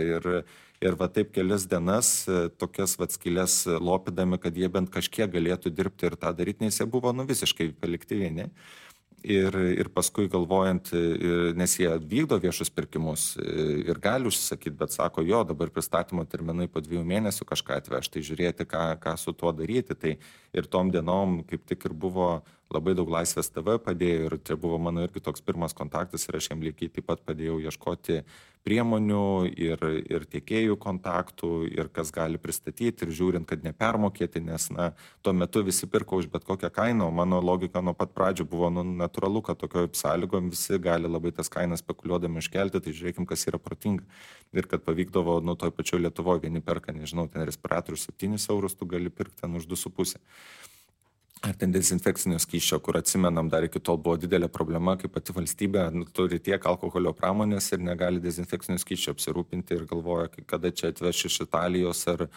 Ir va taip kelias dienas tokias skylės lopydami, kad jie bent kažkiek galėtų dirbti ir tą daryti, nes jie buvo visiškai palikti vieni. Ir paskui galvojant, nes jie vykdo viešus pirkimus ir gali užsisakyti, bet sako, dabar pristatymo terminai po 2 mėnesių kažką atvežti, tai žiūrėti, ką su tuo daryti. Tai ir tom dienom kaip tik ir buvo labai daug Laisvės TV padėjo ir čia buvo mano irgi toks pirmas kontaktas ir aš jam lygiai taip pat padėjau ieškoti priemonių ir tiekėjų kontaktų ir kas gali pristatyti ir žiūrint, kad nepermokėti, nes tuo metu visi pirko už bet kokią kainą, o mano logika nuo pat pradžių buvo natūralu, kad tokio sąlygom visi gali labai tas kainas spekuliuodami iškelti, tai žiūrėkim, kas yra protinga. Ir kad pavykdavo, toj pačioj Lietuvoje vieni perka, nežinau, ten respiratorius 7 eurus, tu gali pirkti ten už 2,5. Ar ten dezinfekcinio skysčio, kur atsimenam, dar iki tol buvo didelė problema, kai pati valstybė turi tiek alkoholio pramonės ir negali dezinfekcinio skysčio apsirūpinti ir galvoja, kada čia atveš iš Italijos ar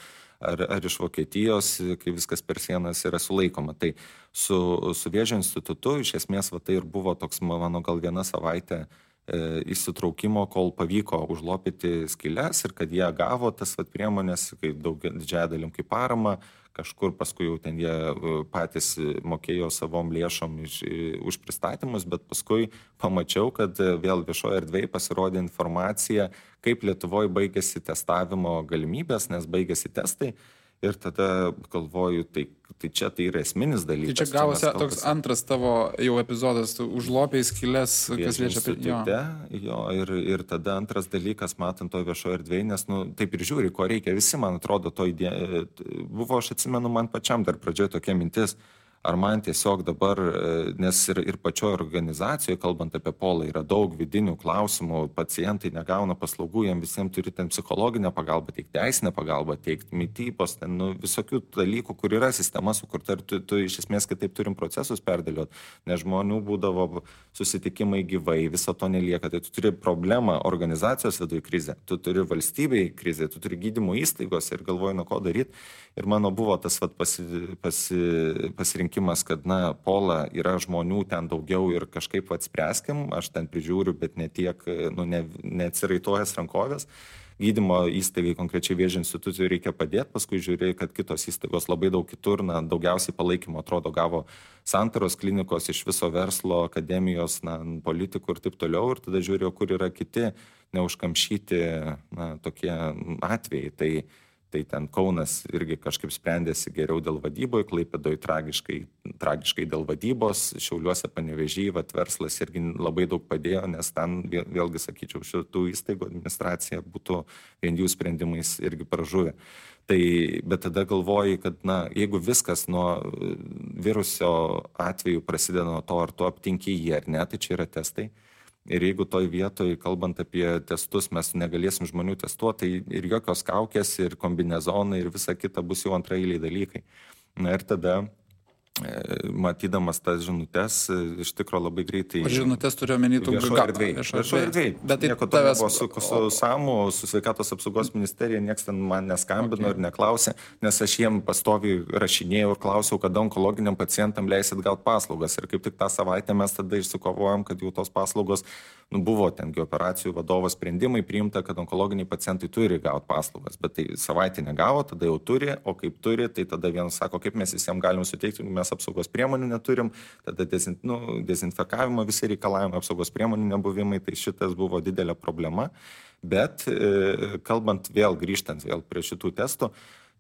iš Vokietijos, kai viskas per sienas yra sulaikoma. Tai su Vėžio institutu iš esmės tai ir buvo toks mano gal 1 savaitė įsitraukimo, kol pavyko užlopyti skyles ir kad jie gavo tas priemonės, didžiąją dalim kaip parama, kažkur paskui jau ten jie patys mokėjo savom lėšom už pristatymus, bet paskui pamačiau, kad vėl viešoje erdvėje pasirodė informacija, kaip Lietuvoje baigėsi testavimo galimybės, nes baigėsi testai. Ir tada galvoju, tai čia tai yra esminis dalykas. Tai čia gavosi toks antras tavo jau epizodas, tu užlopėjai skylės, kas liečia apie ir tada antras dalykas, matant to viešoje erdvėje, nes taip ir žiūri, ko reikia. Visi, man atrodo, to idėja buvo, aš atsimenu, man pačiam dar pradžioje tokia mintis, ar man tiesiog dabar, nes ir pačioje organizacijoje, kalbant apie Polą, yra daug vidinių klausimų, pacientai negauna paslaugų, jiems visiems turi ten psichologinę pagalbą teikti, teisinę pagalbą teikti, mitybos, ten visokių dalykų, kur yra sistema sukurta ir tu iš esmės kitaip turim procesus perdėlioti, nes žmonių būdavo susitikimai gyvai, viso to nelieka, tai tu turi problemą organizacijos viduje krizę, tu turi valstybėje krizę, tu turi gydymo įstaigos ir galvoji, nuo ko daryti. Ir mano buvo tas pasirinkimas, kad Pola yra žmonių ten daugiau ir kažkaip spręskim, aš ten prižiūriu, bet ne tiek, neatsiraitojęs rankovės. Gydymo įstaigai, konkrečiai Vėžio institucijai reikia padėti, paskui žiūrėjai, kad kitos įstaigos labai daug kitur, daugiausiai palaikymo atrodo gavo Santaros klinikos iš viso verslo, akademijos, politikų ir taip toliau, ir tada žiūrėjau, kur yra kiti neužkamšyti tokie atvejai. Tai ten Kaunas irgi kažkaip sprendėsi geriau dėl vadyboje, Klaipėdoje tragiškai dėl vadybos, Šiauliuose, Panevėžyje, verslas irgi labai daug padėjo, nes ten vėlgi, sakyčiau, šitų įstaigų administracija būtų vien jų sprendimais irgi pražuvę. Tai, bet tada galvoji, kad, jeigu viskas nuo viruso atveju prasideda nuo to, ar tu aptinki jį ar ne, tai čia yra testai. Ir jeigu toj vietoj, kalbant apie testus, mes negalėsim žmonių testuoti, tai ir jokios kaukės, ir kombinezonai, ir visa kita bus jau antraeiliai dalykai. Na ir tada, matydamas tas žinutes, iš tikro labai greitai... O žinutes turiu omeny tų viešo erdvėj. Bet nieko to nebuvo su SAMU, su Sveikatos apsaugos ministerija, nieks ten man neskambino ir neklausė, nes aš jiem pastoviai rašinėjau ir klausiau, kada onkologiniam pacientam leisit gauti paslaugas. Ir kaip tik tą savaitę mes tada išsikovojom, kad jau tos paslaugos buvo tengi operacijų vadovo sprendimai priimta, kad onkologiniai pacientai turi gauti paslaugas. Bet tai savaitę negavo, tada jau turi, o kaip turi, tai tada vienas sako, kaip mes visiems galim suteikti, mes apsaugos priemonių neturim, tada dezinfekavimo visi reikalavimai, apsaugos priemonių nebuvimai, tai šitas buvo didelė problema. Bet kalbant grįžtant prie šitų testų,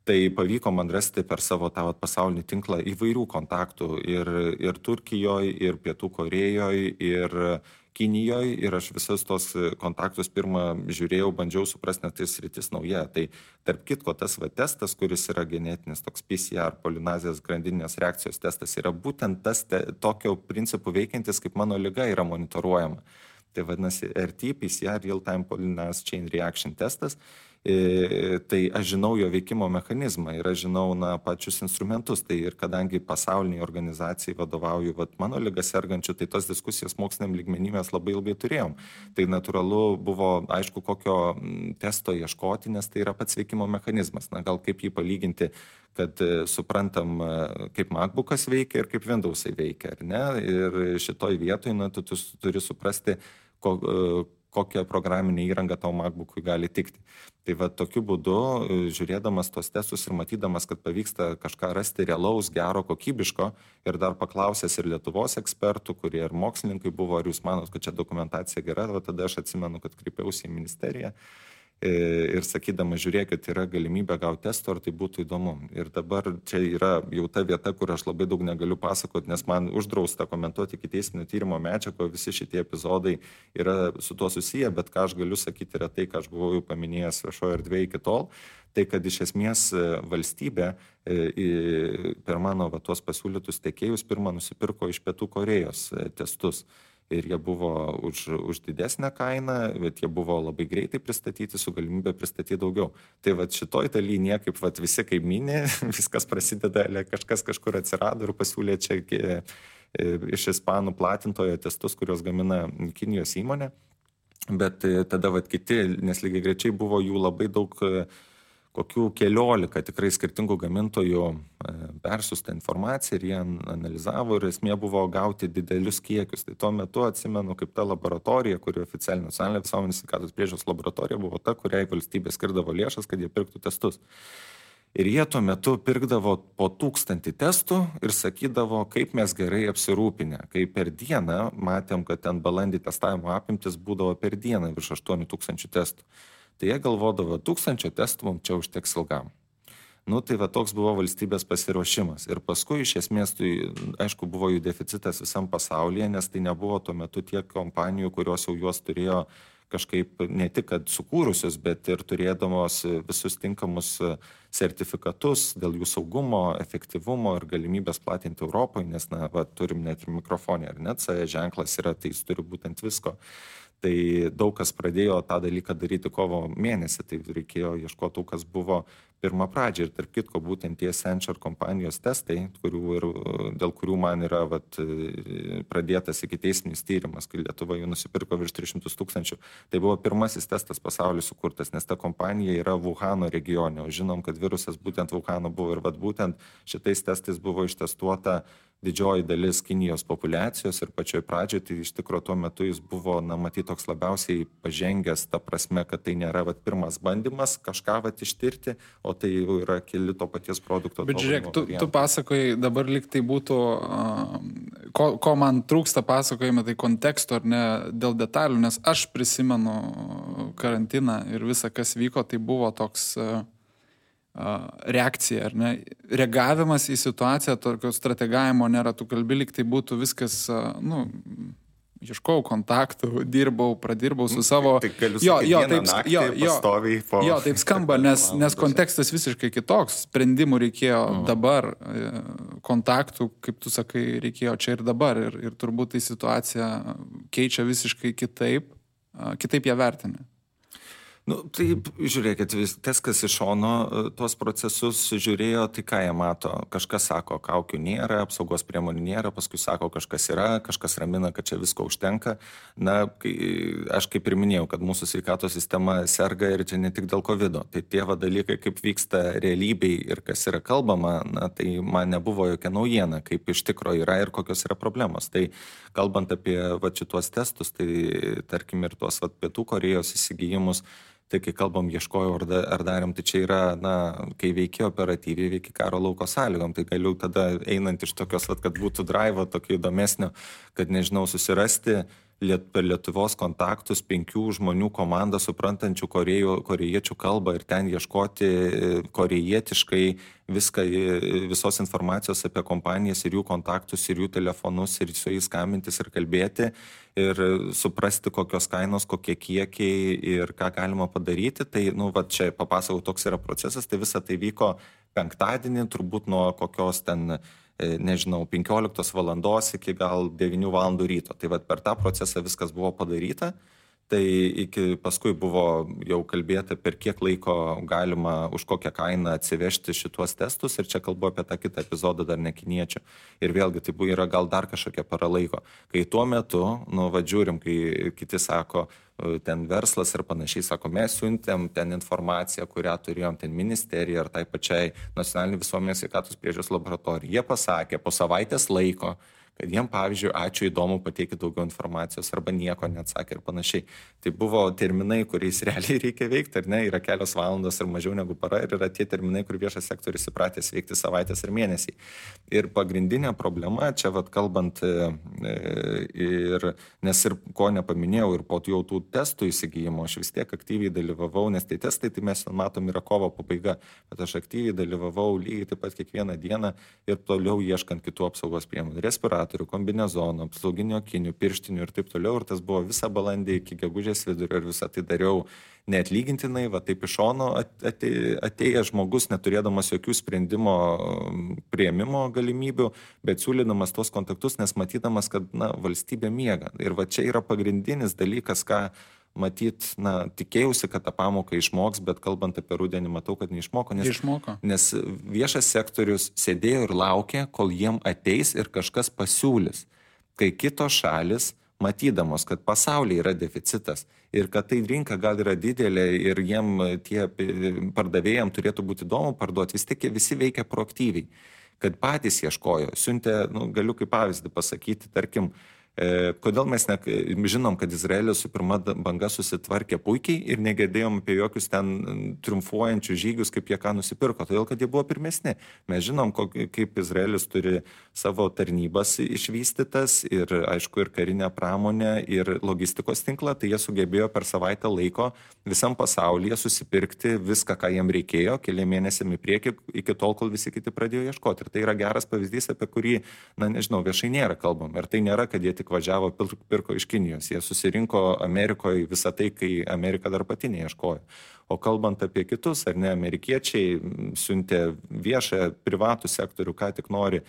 tai pavyko man rasti per savo tą pasaulinį tinklą įvairių kontaktų ir Turkijoje, ir Pietų Korėjoje, ir Kinijoje, ir aš visus tos kontaktus pirmą žiūrėjau, bandžiau suprasti, nes tai sritis nauja. Tai tarp kitko tas testas, kuris yra genetinis, toks PCR, polinazijos grandinės reakcijos testas, yra būtent tas tokio principų veikiantis, kaip mano liga yra monitoruojama. Tai vadinasi RT, PCR, Real-Time Polymerase Chain Reaction testas. Tai aš žinau jo veikimo mechanizmą ir aš žinau pačius instrumentus. Tai ir kadangi pasauliniai organizacijai vadovauju mano ligą sergančių, tai tos diskusijos moksliniam lygmenį mes labai ilgai turėjom. Tai natūralu buvo aišku, kokio testo ieškoti, nes tai yra pats veikimo mechanizmas. Gal kaip jį palyginti, kad suprantam, kaip MacBookas veikia ir kaip Windowsai veikia, ar ne? Ir šitoj vietoj tu turi suprasti, kokią programinę įrangą tau MacBookui gali tikti. Tai tokiu būdu, žiūrėdamas tos testus ir matydamas, kad pavyksta kažką rasti realaus, gero, kokybiško ir dar paklausęs ir Lietuvos ekspertų, kurie ir mokslininkai buvo, ar jūs manot, kad čia dokumentacija gera, tada aš atsimenu, kad kreipiausi į ministeriją ir sakydama, žiūrėkit, yra galimybė gauti testų, ar tai būtų įdomu. Ir dabar čia yra jau ta vieta, kur aš labai daug negaliu pasakoti, nes man uždrausta komentuoti ikiteisminio tyrimo medžiagą, visi šitie epizodai yra su tuo susiję, bet ką aš galiu sakyti yra tai, ką aš buvau jau paminėjęs viešoje erdvėje iki tol, tai kad iš esmės valstybė per mano tuos pasiūlytus tiekėjus pirmą nusipirko iš Pietų Korėjos testus. Ir jie buvo už didesnę kainą, bet jie buvo labai greitai pristatyti, su galimybė pristatyti daugiau. Tai šitoj daly niekaip visi kaimynė, viskas prasideda, kažkas kažkur atsirado ir pasiūlė čia iš ispanų platintojo testus, kurios gamina Kinijos įmonė. Bet tada kiti, nes lygiai greičiai buvo jų labai daug, kokių 14 tikrai skirtingų gamintojų persiųsta informacija ir jie analizavo ir esmė buvo gauti didelius kiekius. Tai tuo metu atsimenu, kaip ta laboratorija, kuri oficialinė nacionalinė visuomenės sveikatos priežiūros laboratorija buvo ta, kuriai valstybė skirdavo lėšas, kad jie pirktų testus. Ir jie tuo metu pirkdavo po 1000 testų ir sakydavo, kaip mes gerai apsirūpinę. Kai per dieną matėm, kad ten balandį testavimo apimtis būdavo per dieną virš 8000 testų. Tai jie galvodavo, 1000 testų mums čia užteks ilgam. Tai toks buvo valstybės pasiruošimas. Ir paskui iš esmės, tai aišku, buvo jų deficitas visam pasaulyje, nes tai nebuvo tuo metu tiek kompanijų, kurios jau juos turėjo kažkaip ne tik kad sukūrusius, bet ir turėdamos visus tinkamus sertifikatus dėl jų saugumo, efektyvumo ir galimybės platinti Europoje, nes turim net ir mikrofonį, ar net CE ženklas yra, tai jis turi būtent visko. Tai daug kas pradėjo tą dalyką daryti kovo mėnesį, tai reikėjo ieškoti, kas buvo pirmą pradžią. Ir tarp kitko, būtent tie Accenture kompanijos testai, dėl kurių man yra pradėtas ikiteisminis tyrimas, kai Lietuva jų nusipirko virš 300 000, tai buvo pirmasis testas pasaulyje sukurtas, nes ta kompanija yra Wuhano regione, o žinom, kad virusas būtent Wuhano buvo ir būtent šitais testais buvo ištestuota didžioji dalis Kinijos populiacijos ir pačioj pradžioj, tai iš tikro tuo metu jis buvo, matyt, toks labiausiai pažengęs, ta prasme, kad tai nėra pirmas bandymas kažką ištirti, o tai jau yra keli to paties produkto. Bet žiūrėk, tu pasakoji, dabar lyg tai būtų, ko man trūksta pasakojime, tai konteksto ar ne dėl detalių, nes aš prisimenu karantiną ir visą, kas vyko, tai buvo toks reakcija, ar ne? Reagavimas į situaciją, tokio strategavimo nėra, tu kalbi, lyg tai būtų viskas, ieškojau kontaktų, pradirbau su savo... Tai galiu sakyti, pastoviai po... Jo, taip skamba, nes kontekstas visiškai kitoks. Sprendimų reikėjo dabar, kontaktų, kaip tu sakai, reikėjo čia ir dabar. Ir turbūt tai situacija keičia visiškai kitaip ją vertinę. Taip, žiūrėkit, tas, kas iš šono tuos procesus žiūrėjo, tai ką jie mato. Kažkas sako, kaukių nėra, apsaugos priemonių nėra, paskui sako, kažkas yra, kažkas ramina, kad čia visko užtenka. Aš kaip ir minėjau, kad mūsų sveikatos sistema serga ir čia ne tik dėl COVID. Tai tie dalykai, kaip vyksta realybėj ir kas yra kalbama, tai man nebuvo jokia naujiena, kaip iš tikro yra ir kokios yra problemos. Tai kalbant apie šituos testus, tai tarkim ir tuos Pietų Korėjos įsigijimus, tai kai kalbam ieškojau ar darėm, tai čia yra, kai veikia operatyviai, veikia karo lauko sąlygom, tai galiu tada einant iš tokios, kad būtų drivo tokio įdomesnio, kad nežinau, susirasti per Lietuvos kontaktus 5 žmonių komandą suprantančių korėjiečių kalbą ir ten ieškoti korejietiškai visos informacijos apie kompanijas ir jų kontaktus ir jų telefonus ir su jais skambintis ir kalbėti ir suprasti, kokios kainos, kokie kiekiai ir ką galima padaryti. Tai, čia papasakau, toks yra procesas, tai visa tai vyko penktadienį, turbūt nuo kokios ten 15 valandos iki gal 9 valandų ryto. Tai per tą procesą viskas buvo padaryta. Tai paskui buvo jau kalbėta, per kiek laiko galima už kokią kainą atsivežti šituos testus. Ir čia kalbu apie tą kitą epizodą dar ne kiniečių. Ir vėlgi tai yra gal dar kažkokia para laiko. Kai tuo metu, žiūrim, kai kiti sako, ten verslas ir panašiai, sako, mes siuntėm ten informaciją, kurią turėjom ten ministerija ar tai pačiai nacionalinį visuomenės sveikatos priežiūros laboratorijai. Jie pasakė po savaitės laiko, kad jiem, pavyzdžiui, ačiū, įdomu, pateikti daugiau informacijos arba nieko neatsakė ir panašiai. Tai buvo terminai, kuriais realiai reikia veikti, ar ne, yra kelios valandos ir mažiau negu para ir yra tie terminai, kur viešas sektorius įpratęs veikti savaitės ir mėnesiai. Ir pagrindinė problema, čia kalbant, nes ir ko nepaminėjau, ir po jau tų testų įsigijimo, aš vis tiek aktyviai dalyvavau, nes tai testai, tai mes matom, yra kovo pabaiga, bet aš aktyviai dalyvavau lygiai taip pat kiekvieną dieną ir toliau ieškant kitų apsaugos priemonių. Respiratorių, kombinezonų, apsauginių akinių, pirštinių ir taip toliau. Ir tas buvo visą balandį iki gegužės vidurio ir visą tai dariau neatlygintinai, taip iš šono atėjęs žmogus, neturėdamas jokių sprendimo priėmimo galimybių, bet siūlydamas tos kontaktus, nes matydamas, kad valstybė miega. Ir čia yra pagrindinis dalykas, ką matyt, tikėjausi, kad tą pamoką išmoks, bet kalbant apie rudenį, matau, kad neišmoko. Nes viešas sektorius sėdėjo ir laukė, kol jiem ateis ir kažkas pasiūlys. Kai kitos šalis, matydamos, kad pasaulyje yra deficitas ir kad tai rinka gal yra didelė ir jiem tie pardavėjams turėtų būti įdomu parduoti, vis tik visi veikia proaktyviai, kad patys ieškojo. Siuntė, galiu kaip pavyzdį pasakyti, tarkim, kodėl mes žinom, kad Izraelis su pirma banga susitvarkė puikiai ir negirdėjom apie jokius ten triumfuojančius žygius, kaip jie ką nusipirko, todėl kad jie buvo pirmesni. Mes žinom, kaip Izraelis turi savo tarnybas išvystytas ir, aišku, ir karinę pramonę, ir logistikos tinklą, tai jie sugebėjo per savaitę laiko visam pasaulyje susipirkti viską, ką jiem reikėjo, keli mėnesiami prieki, iki tol, kol visi kiti pradėjo ieškoti. Ir tai yra geras pavyzdys, apie kurį, viešai nėra kalbam. Ir tai nėra, kad jie tik važiavo, pirko iš Kinijos. Jie susirinko Amerikoje visą tai, kai Amerika dar pati neieškojo. O kalbant apie kitus, ar ne, amerikiečiai siuntė viešą privatų sektorių, ką tik nori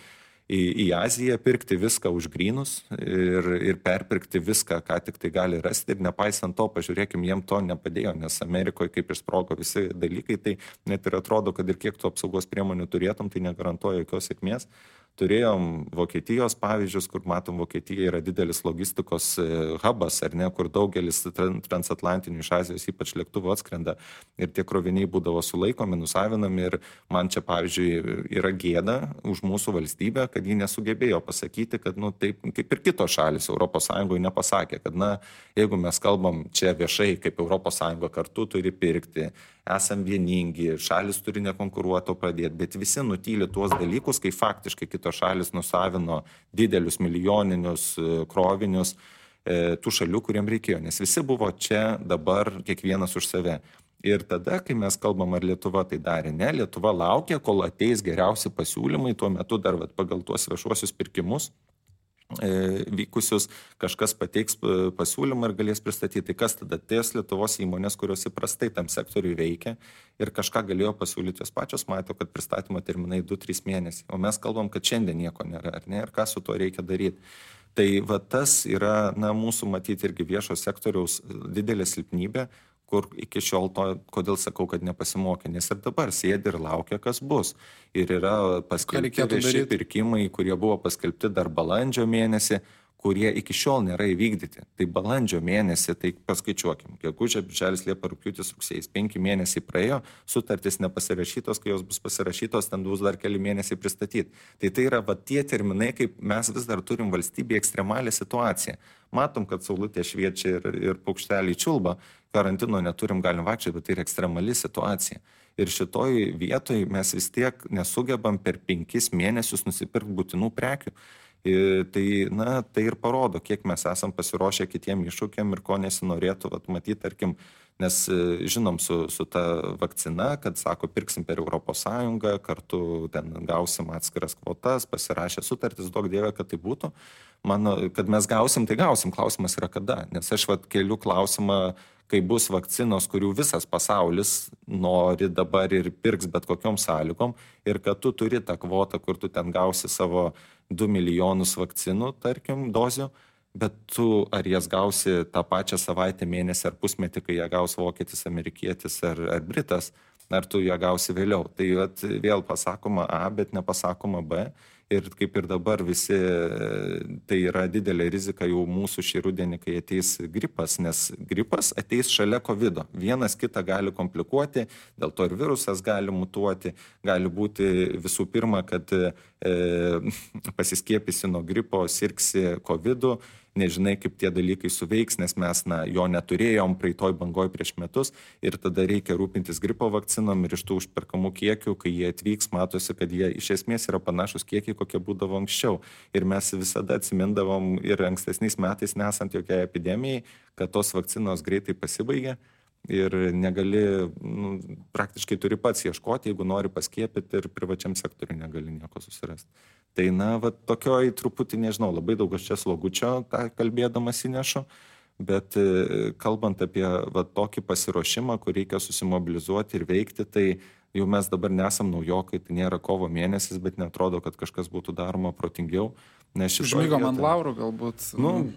į Aziją, pirkti viską už grynus ir perpirkti viską, ką tik tai gali rasti. Ir nepaisant to, pažiūrėkim, jiem to nepadėjo, nes Amerikoje kaip išsprogo visi dalykai, tai net ir atrodo, kad ir kiek tu apsaugos priemonių turėtum, tai negarantuoja jokios sėkmės. Turėjom Vokietijos pavyzdžius, kur matom, Vokietija yra didelis logistikos hubas, ar ne, kur daugelis transatlantinių iš Azijos ypač lėktuvų atskrenda ir tie kroviniai būdavo sulaikomi, nusavinami ir man čia, pavyzdžiui, yra gėda už mūsų valstybę, kad ji nesugebėjo pasakyti, kad, taip kaip ir kitos šalis Europos Sąjungoje nepasakė, kad, jeigu mes kalbam čia viešai, kaip Europos Sąjunga kartu turi pirkti, esam vieningi, šalis turi nekonkuruoti, o pradėti, bet visi nutyli tuos dalykus, kai faktiškai kitos šalis nusavino didelius milijoninius krovinius tų šalių, kuriem reikėjo, nes visi buvo čia dabar kiekvienas už save. Ir tada, kai mes kalbam, ar Lietuva tai darė, ne, Lietuva laukia, kol ateis geriausi pasiūlymai, tuo metu dar pagal tuos viešuosius pirkimus vykusius, kažkas pateiks pasiūlymą ir galės pristatyti. Tai kas tada? Ties Lietuvos įmonės, kurios įprastai tam sektoriui veikia ir kažką galėjo pasiūlyti, jos pačios mato, kad pristatymo terminai 2-3 mėnesiai. O mes kalbam, kad šiandien nieko nėra, ar ne? Ir ką su tuo reikia daryti? Tai va tas yra, mūsų matyti irgi viešo sektoriaus didelė silpnybė, kur iki šiol to, kodėl sakau, kad nepasimokė, nes ir dabar sėdi ir laukia, kas bus. Ir yra paskelbti vieši pirkimai, kurie buvo paskelbti dar balandžio mėnesį, kurie iki šiol nėra įvykdyti. Tai balandžio mėnesį, tai paskaičiuokim, gegužė, birželis, liepa, rugpjūtis, rugsėjais, 5 mėnesiai praėjo, sutartys nepasirašytos, kai jos bus pasirašytos, ten bus dar keli mėnesiai pristatyti. Tai yra tie terminai, kaip mes vis dar turim valstybėje ekstremalią situaciją. Matom, kad saulutė šviečia ir paukšteliai čiulba, karantino neturim, galim vaikščioti, bet tai yra ekstremali situacija. Ir šitoj vietoj mes vis tiek nesugebam per 5 mėnesius nusipirkti būtinų prekių. Tai ir parodo, kiek mes esam pasiruošę kitiem iššūkiam ir ko nesinorėtų matyti, tarkim, nes žinom su ta vakcina, kad sako, pirksim per Europos Sąjungą, kartu ten gausim atskiras kvotas, pasirašę sutartis, duok Dieve, kad tai būtų. Mano, kad mes gausim, tai gausim, klausimas yra kada, nes aš keliu klausimą, kai bus vakcinos, kurių visas pasaulis nori dabar ir pirks bet kokiom sąlygom, ir kad tu turi tą kvotą, kur tu ten gausi savo 2 milijonus vakcinų, tarkim, dozių, bet tu ar jas gausi tą pačią savaitę, mėnesį ar pusmetį, kai ją gaus vokietis, amerikietis ar britas, ar tu ją gausi vėliau. Tai vėl pasakoma A, bet nepasakoma B. Ir kaip ir dabar visi, tai yra didelė rizika jau mūsų šį rudenį, kai ateis gripas, nes gripas ateis šalia COVID-o. Vienas kitą gali komplikuoti, dėl to ir virusas gali mutuoti, gali būti visų pirma, kad pasiskiepysi nuo gripo, sirgsi COVID-u, nežinai, kaip tie dalykai suveiks, nes mes jo neturėjom praeitoj bangoj prieš metus ir tada reikia rūpintis gripo vakcinom ir iš tų užperkamų kiekių, kai jie atvyks, matosi, kad jie iš esmės yra panašus kiekiai, kokie būdavo anksčiau. Ir mes visada atsimindavom ir ankstesniais metais, nesant jokiai epidemijai, kad tos vakcinos greitai pasibaigė ir negali, praktiškai turi pats ieškoti, jeigu nori paskiepyti ir privačiam sektoriui negali nieko susirasti. Tai tokioj truputį, nežinau, labai daug aš čia slogučio tą kalbėdamas įnešu, bet kalbant apie tokį pasiruošimą, kur reikia susimobilizuoti ir veikti, tai jau mes dabar nesam naujokai, tai nėra kovo mėnesis, bet netrodo, kad kažkas būtų daroma protingiau. Užmygom ant laurų galbūt.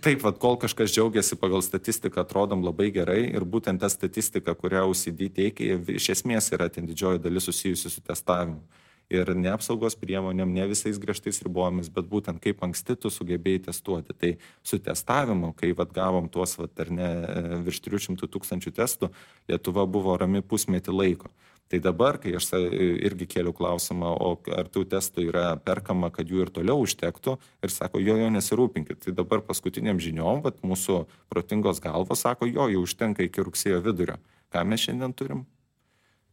Taip, kol kažkas džiaugiasi pagal statistiką, atrodom labai gerai ir būtent ta statistika, kurią OCD teikia, iš esmės yra ten didžioji dalis susijusi su testavimu. Ir ne apsaugos priemonėm, ne visais griežtais ribojomis, bet būtent kaip anksti tu sugebėjai testuoti. Tai su testavimu, kai gavom tuos virš 300 000 testų, Lietuva buvo rami pusmetį laiko. Tai dabar, kai aš irgi kėliau klausimą, o ar tų testų yra perkama, kad jų ir toliau užtektų, ir sako, jo nesirūpinkit. Tai dabar paskutiniam žiniom, mūsų protingos galvos sako, jau užtenka iki rugsėjo vidurio. Ką mes šiandien turim?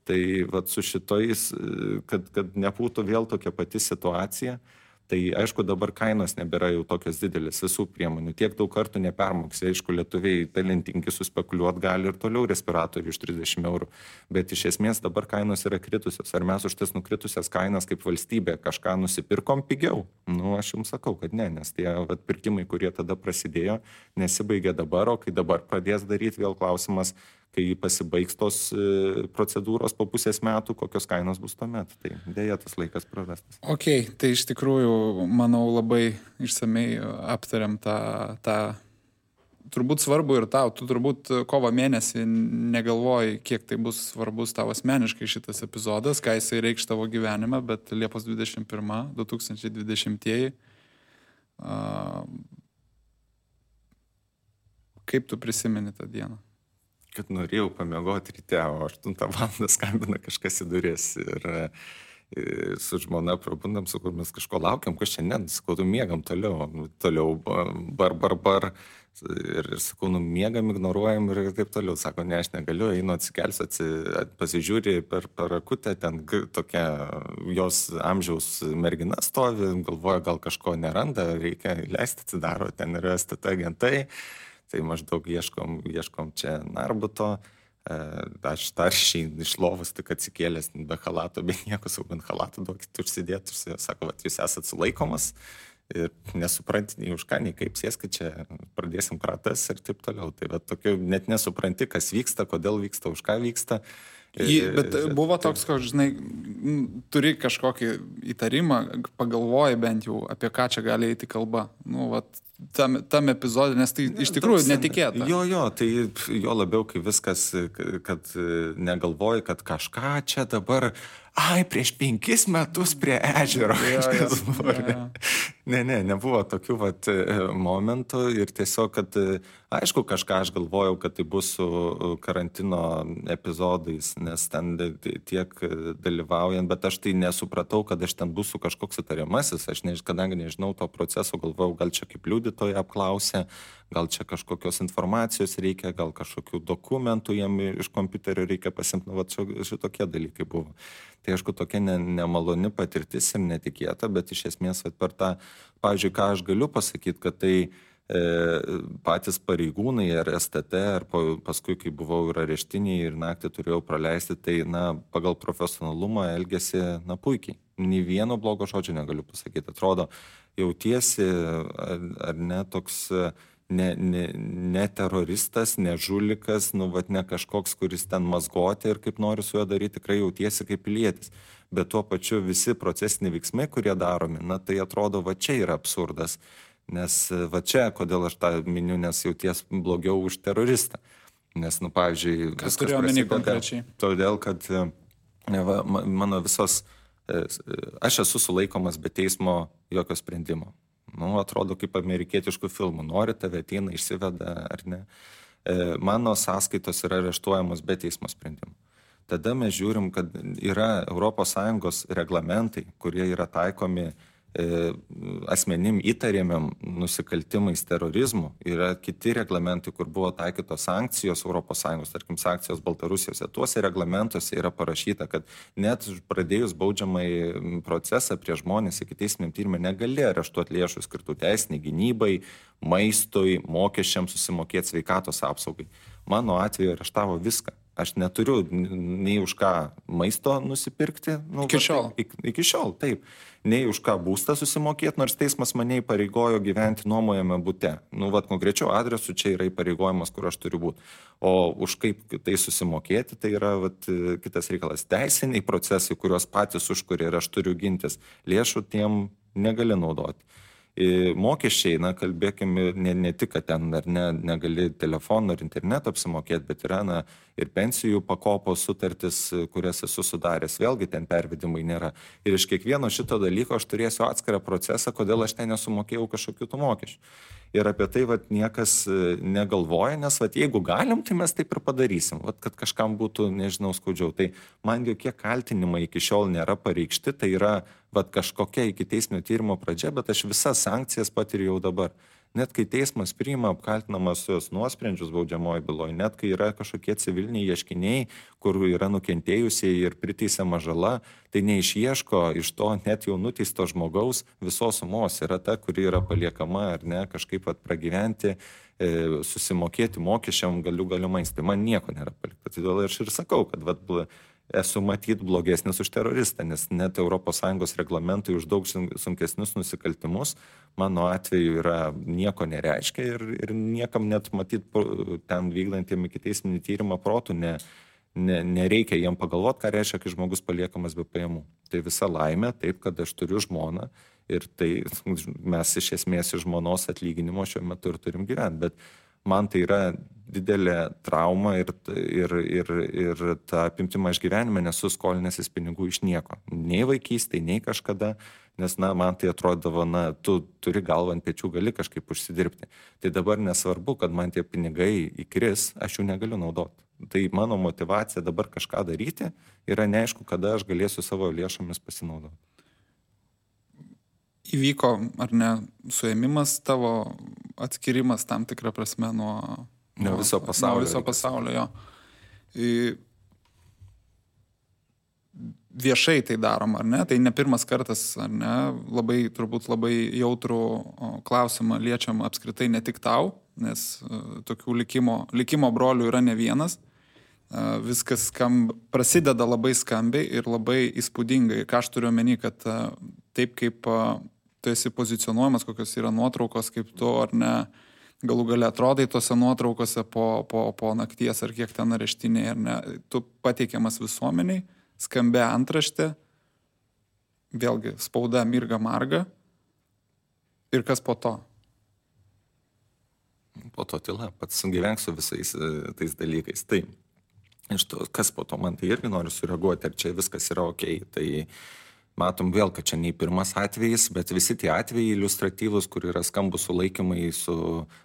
Tai su šitais, kad nebūtų vėl tokia pati situacija, tai aišku dabar kainos nebėra jau tokios didelis visų priemonių. Tiek daug kartų nepermoksi. Aišku, lietuviai talentingi suspekuliuoti gali ir toliau respiratorių už 30 eurų. Bet iš esmės dabar kainos yra kritusios. Ar mes už tas nukritusias kainas kaip valstybė kažką nusipirkom pigiau? Aš jums sakau, kad ne, nes tie pirkimai, kurie tada prasidėjo, nesibaigė dabar, o kai dabar pradės daryti, vėl klausimas, kai pasibaigs tos procedūros po pusės metų, kokios kainos bus tuomet. Tai dėja tas laikas prarastas. Ok, tai iš tikrųjų, manau, labai išsamei aptariam tą turbūt svarbu ir tau. Tu turbūt kovo mėnesį negalvoji, kiek tai bus svarbus tavo asmeniškai šitas epizodas, ką jisai reikš tavo gyvenime, bet Liepos 21, 2020-ieji. Kaip tu prisimeni tą dieną? Kad norėjau pamiegoti ryte, o 8 valandą skambina kažkas į duris ir su žmona prabundam, sakau, mes kažko laukiam, kas šiandien, sakau, miegam toliau, bar. Ir sakau, miegam, ignoruojam ir taip toliau. Sako, ne, aš negaliu, einu atsikelsiu, pasižiūri per akutę, ten tokia jos amžiaus mergina stovi, galvoja, gal kažko neranda, reikia leisti, atsidaro, ten yra STT agentai. Tai maždaug ieškom čia Narbuto, Aš taršiai iš lovos tik atsikėlęs be halato, be nieko, sau bent halatą duokit užsidėti. Sako, vat, jūs esat sulaikomas ir nesupranti nei už ką, nei kaip, sėskit čia, pradėsim kratas ir taip toliau. Tai va, tokiu, net nesupranti, kas vyksta, kodėl vyksta, už ką vyksta. Bet buvo toks, kad, žinai, turi kažkokį įtarimą, pagalvoji bent jau, apie ką čia gali eiti kalba. Nu, vat, tam epizodė, nes tai iš tikrųjų netikėta. Jo, tai jo labiau, kai viskas, kad negalvoji, kad kažką čia dabar, prieš 5 metus prie ežero. Nebuvo tokių vat momentų ir tiesiog, kad aišku, kažką aš galvojau, kad tai bus su karantino epizodais, nes ten tiek dalyvaujant, bet aš tai nesupratau, kad aš ten būsiu kažkoks įtariamasis, kadangi nežinau to proceso, galvojau, gal čia kaip liudytoja apklausė, gal čia kažkokios informacijos reikia, gal kažkokių dokumentų jam iš kompiuterio reikia pasimti, nu, šitokie dalykai buvo. Tai aišku, tokia nemaloni patirtis ir netikėta, bet iš esmės per tą, pavyzdžiui, ką aš galiu pasakyti, kad tai patys pareigūnai ar STT, ar paskui, kai buvau ir areštiniai ir naktį turėjau praleisti, tai pagal profesionalumą elgėsi puikiai. Nei vieno blogo žodžio negaliu pasakyti. Atrodo, jautiesi ar ne toks ne teroristas, ne žulikas, ne kažkoks, kuris ten mazgoti ir kaip nori su juo daryti, tikrai jautiesi kaip pilietis. Bet tuo pačiu visi procesiniai veiksmai, kurie daromi, tai atrodo, čia yra absurdas. Nes čia, kodėl aš tą miniu, nes jauties blogiau už teroristą. Nes, pavyzdžiui, kas turėjo omeny konkrečiai? Todėl, kad mano visos, aš esu sulaikomas be teismo jokio sprendimo. Atrodo kaip amerikietiškų filmų. Nori, tave ateina, išsiveda ar ne. Mano sąskaitos yra areštuojamos be teismo sprendimo. Tada mes žiūrim, kad yra ES reglamentai, kurie yra taikomi asmenim įtariamiam nusikaltimais terorizmu. Yra kiti reglamentai, kur buvo taikytos sankcijos ES, tarkim, sankcijos Baltarusijose. Tuose reglamentuose yra parašyta, kad net pradėjus baudžiamąjį procesą prie žmonės ikiteisminiam tyrimui negali areštuoti lėšų skirtų teisiniai gynybai, maistui, mokesčiams susimokėti, sveikatos apsaugai. Mano atveju areštavo viską. Aš neturiu nei už ką maisto nusipirkti. Iki šiol, taip. Nei už ką būstą susimokėti, nors teismas mane įpareigojo gyventi nuomojame bute. Konkrečiu adresu čia yra įpareigojimas, kur aš turiu būti. O už kaip tai susimokėti, tai yra kitas reikalas. Teisiniai procesai, kuriuos patys užkuria ir aš turiu gintis, lėšų tiem negali naudoti. Mokesčiai, kalbėkime, ne tik, kad ten ar negali telefoną ar interneto apsimokėti, bet yra ir pensijų pakopos sutartis, kurias esu sudaręs, vėlgi ten pervedimai nėra. Ir iš kiekvieno šito dalyko aš turėsiu atskirą procesą, kodėl aš ten nesumokėjau kažkokių tų mokesčių. Ir apie tai niekas negalvoja, nes jeigu galim, tai mes taip ir padarysim, kad kažkam būtų, nežinau, skaudžiau. Tai man jokie kaltinimai iki šiol nėra pareikšti, tai yra kažkokia ikiteisminio tyrimo pradžia, bet aš visas sankcijas patiriu jau dabar. Net kai teismas priima apkaltinamas jos nuosprendžius baudžiamoji byloje, net kai yra kažkokie civiliniai ieškiniai, kur yra nukentėjusieji ir priteisiama žala, tai neišieško iš to net jau nuteisto žmogaus visos sumos. Yra ta, kuri yra paliekama ar ne, kažkaip pragyventi, susimokėti mokesčiam galimais. Tai man nieko nėra palikta. Todėl aš ir sakau, kad esu matyt blogesnis už teroristą, nes net ES reglamentai už daug sunkesnius nusikaltimus mano atveju nieko nereiškia ir niekam net matyt ten vykdantiem ikiteisminį tyrimą protų nereikia jiem pagalvoti, ką reiškia, kai žmogus paliekamas be pajamų. Tai visa laimė, taip, kad aš turiu žmoną ir tai mes iš esmės iš žmonos atlyginimo šiuo metu ir turim gyventi, bet man tai yra didelė trauma ir tą apimtimą aš gyvenime nesu skolinęsis pinigų iš nieko. Nei vaikystėje, nei kažkada, nes man tai atrodavo, tu turi galvą ant pečių, gali kažkaip užsidirbti. Tai dabar nesvarbu, kad man tie pinigai įkris, aš jų negaliu naudoti. Tai mano motivacija dabar kažką daryti yra neaišku, kada aš galėsiu savo lėšomis pasinaudoti. Įvyko, ar ne, suėmimas tavo, atskirimas tam tikrą prasme nuo viso pasaulio. Nuo viso pasaulio, jo. Viešai tai darom, ar ne? Tai ne pirmas kartas, ar ne? Turbūt labai jautrų klausimą liečiam apskritai ne tik tau, nes tokių likimo brolių yra ne vienas. viskas prasideda labai skambiai ir labai įspūdingai. Ką aš turiu omeny, kad taip kaip tu esi pozicionuojamas, kokios yra nuotraukos, kaip tu ar ne galų gale atrodai tose nuotraukose po nakties ar kiek ten areštiniai, ar ne, tu pateikiamas visuomeniai, skambia antraštė, vėlgi spauda mirga marga ir kas po to? Po to tyla, pats gyvensiu visais tais dalykais. Tai iš to, kas po to, man tai irgi noriu sureaguoti, ar čia viskas yra okei. Tai matom vėl, kad čia nei pirmas atvejis, bet visi tie atvejai iliustratyvus, kur yra skambus sulaikymai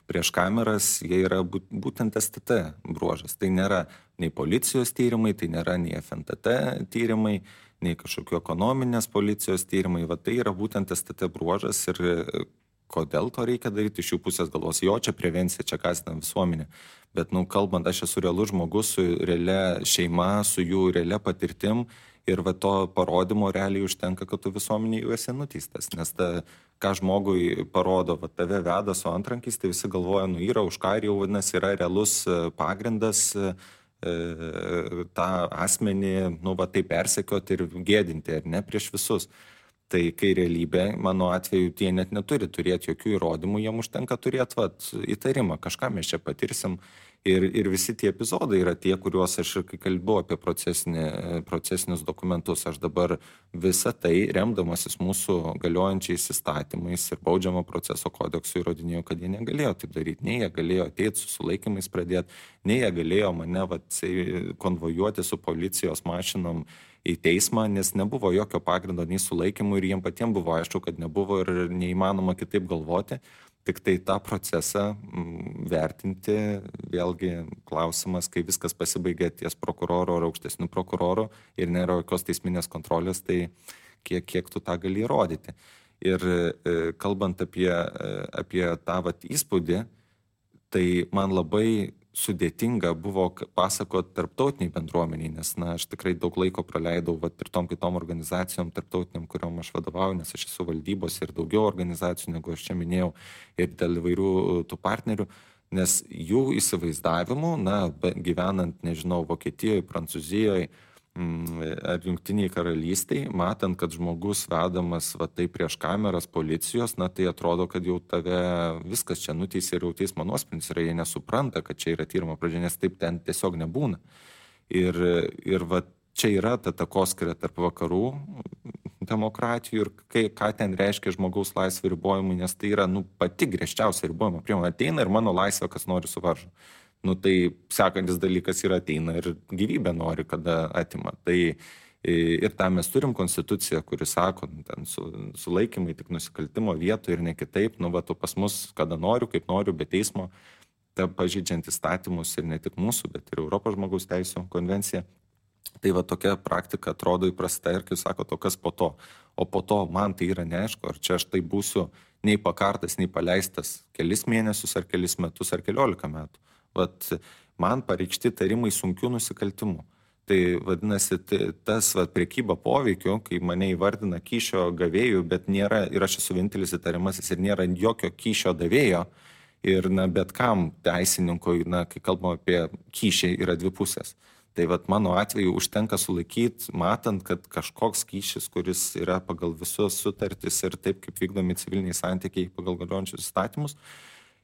prieš kameras, jie yra būtent STT bruožas. Tai nėra nei policijos tyrimai, tai nėra nei FNTT tyrimai, nei kažkokių ekonominės policijos tyrimai. Va tai yra būtent STT bruožas ir kodėl to reikia daryti iš jų pusės galvos. Jo, čia prevencija, čia kasdien visuomenė. Bet, kalbant, aš esu realus žmogus su realia šeima, su jų realia patirtim ir va to parodymo realiai užtenka, kad tu visuomenė jau esi nuteistas. Nes ką žmogui parodo, va tave veda su antrankiais, tai visi galvoja, yra už ką ir jau vadinasi yra realus pagrindas tą asmenį, taip persekioti ir gėdinti, ar ne, prieš visus. Tai kai realybė, mano atveju, tie net neturi turėti jokių įrodymų, jiem užtenka turėti įtarimą, kažką mes čia patirsim. Ir visi tie epizodai yra tie, kuriuos aš ir kai kalbėjau apie procesinius dokumentus, aš dabar visą tai, remdamasis mūsų galiojančiais įstatymais ir baudžiamo proceso kodeksu įrodinėjau, kad jie negalėjo taip daryti. Nei jie galėjo ateiti su sulaikymais pradėti, nei jie galėjo mane konvojuoti su policijos mašinom į teismą, nes nebuvo jokio pagrindo nei sulaikymų ir jiem patiems buvo aišku, kad nebuvo ir neįmanoma kitaip galvoti. Tik tai tą procesą vertinti, vėlgi klausimas, kai viskas pasibaigė ties prokuroro ar aukštesnių prokurorų ir nėra jokios teisminės kontrolės, tai kiek tu tą gali įrodyti. Ir kalbant apie tą įspūdį, tai man labai sudėtinga buvo pasakoti tarptautiniai bendruomeniai, nes aš tikrai daug laiko praleidau ir tom kitom organizacijom tarptautiniam, kuriuom aš vadovauju, nes aš esu valdybos ir daugiau organizacijų, negu aš čia minėjau, ir dėl įvairių tų partnerių, nes jų įsivaizdavimų, gyvenant, nežinau, Vokietijoje, Prancūzijoje ar Jungtiniai karalystiai, matant, kad žmogus vedamas tai prieš kameras policijos, tai atrodo, kad jau tave viskas čia nuteisė ir jau teismo nuosprendis yra, jie nesupranta, kad čia yra tyrimo pradžia, nes taip ten tiesiog nebūna. Ir čia yra ta takoskira tarp vakarų demokratijų ir ką ten reiškia žmogaus laisvė ribojimai, nes tai yra pati griežčiausia ribojimo priemonė. Ateina ir mano laisvę, kas nori suvaržo. Tai sekantis dalykas yra ateina ir gyvybę nori, kada atima. Tai ir tą mes turim konstituciją, kuri sako, ten sulaikymai tik nusikaltimo vietoje ir ne kitaip, tu pas mus, kada noriu, kaip noriu, be teismo, pažeidžiant įstatymus ir ne tik mūsų, bet ir Europos žmogaus teisių konvencija. Tai tokia praktika atrodo įprasta ir, kaip sako, kas po to. O po to man tai yra neaišku, ar čia aš tai būsiu nei pakartas, nei paleistas kelis mėnesius, ar kelis metus, ar 14 metų. Man pareikšti tarimai sunkių nusikaltimų. Tai vadinasi, tas prekyba poveikiu, kai mane įvardina kyšio gavėjų, bet nėra, ir aš esu vienintelis įtariamasis, ir nėra jokio kyšio davėjo, ir bet kam teisininkui, kai kalbam apie kyšį, yra dvi pusės. Tai mano atveju užtenka sulaikyti, matant, kad kažkoks kyšis, kuris yra pagal visus sutartis ir taip, kaip vykdomi civiliniai santykiai pagal galiojančius įstatymus,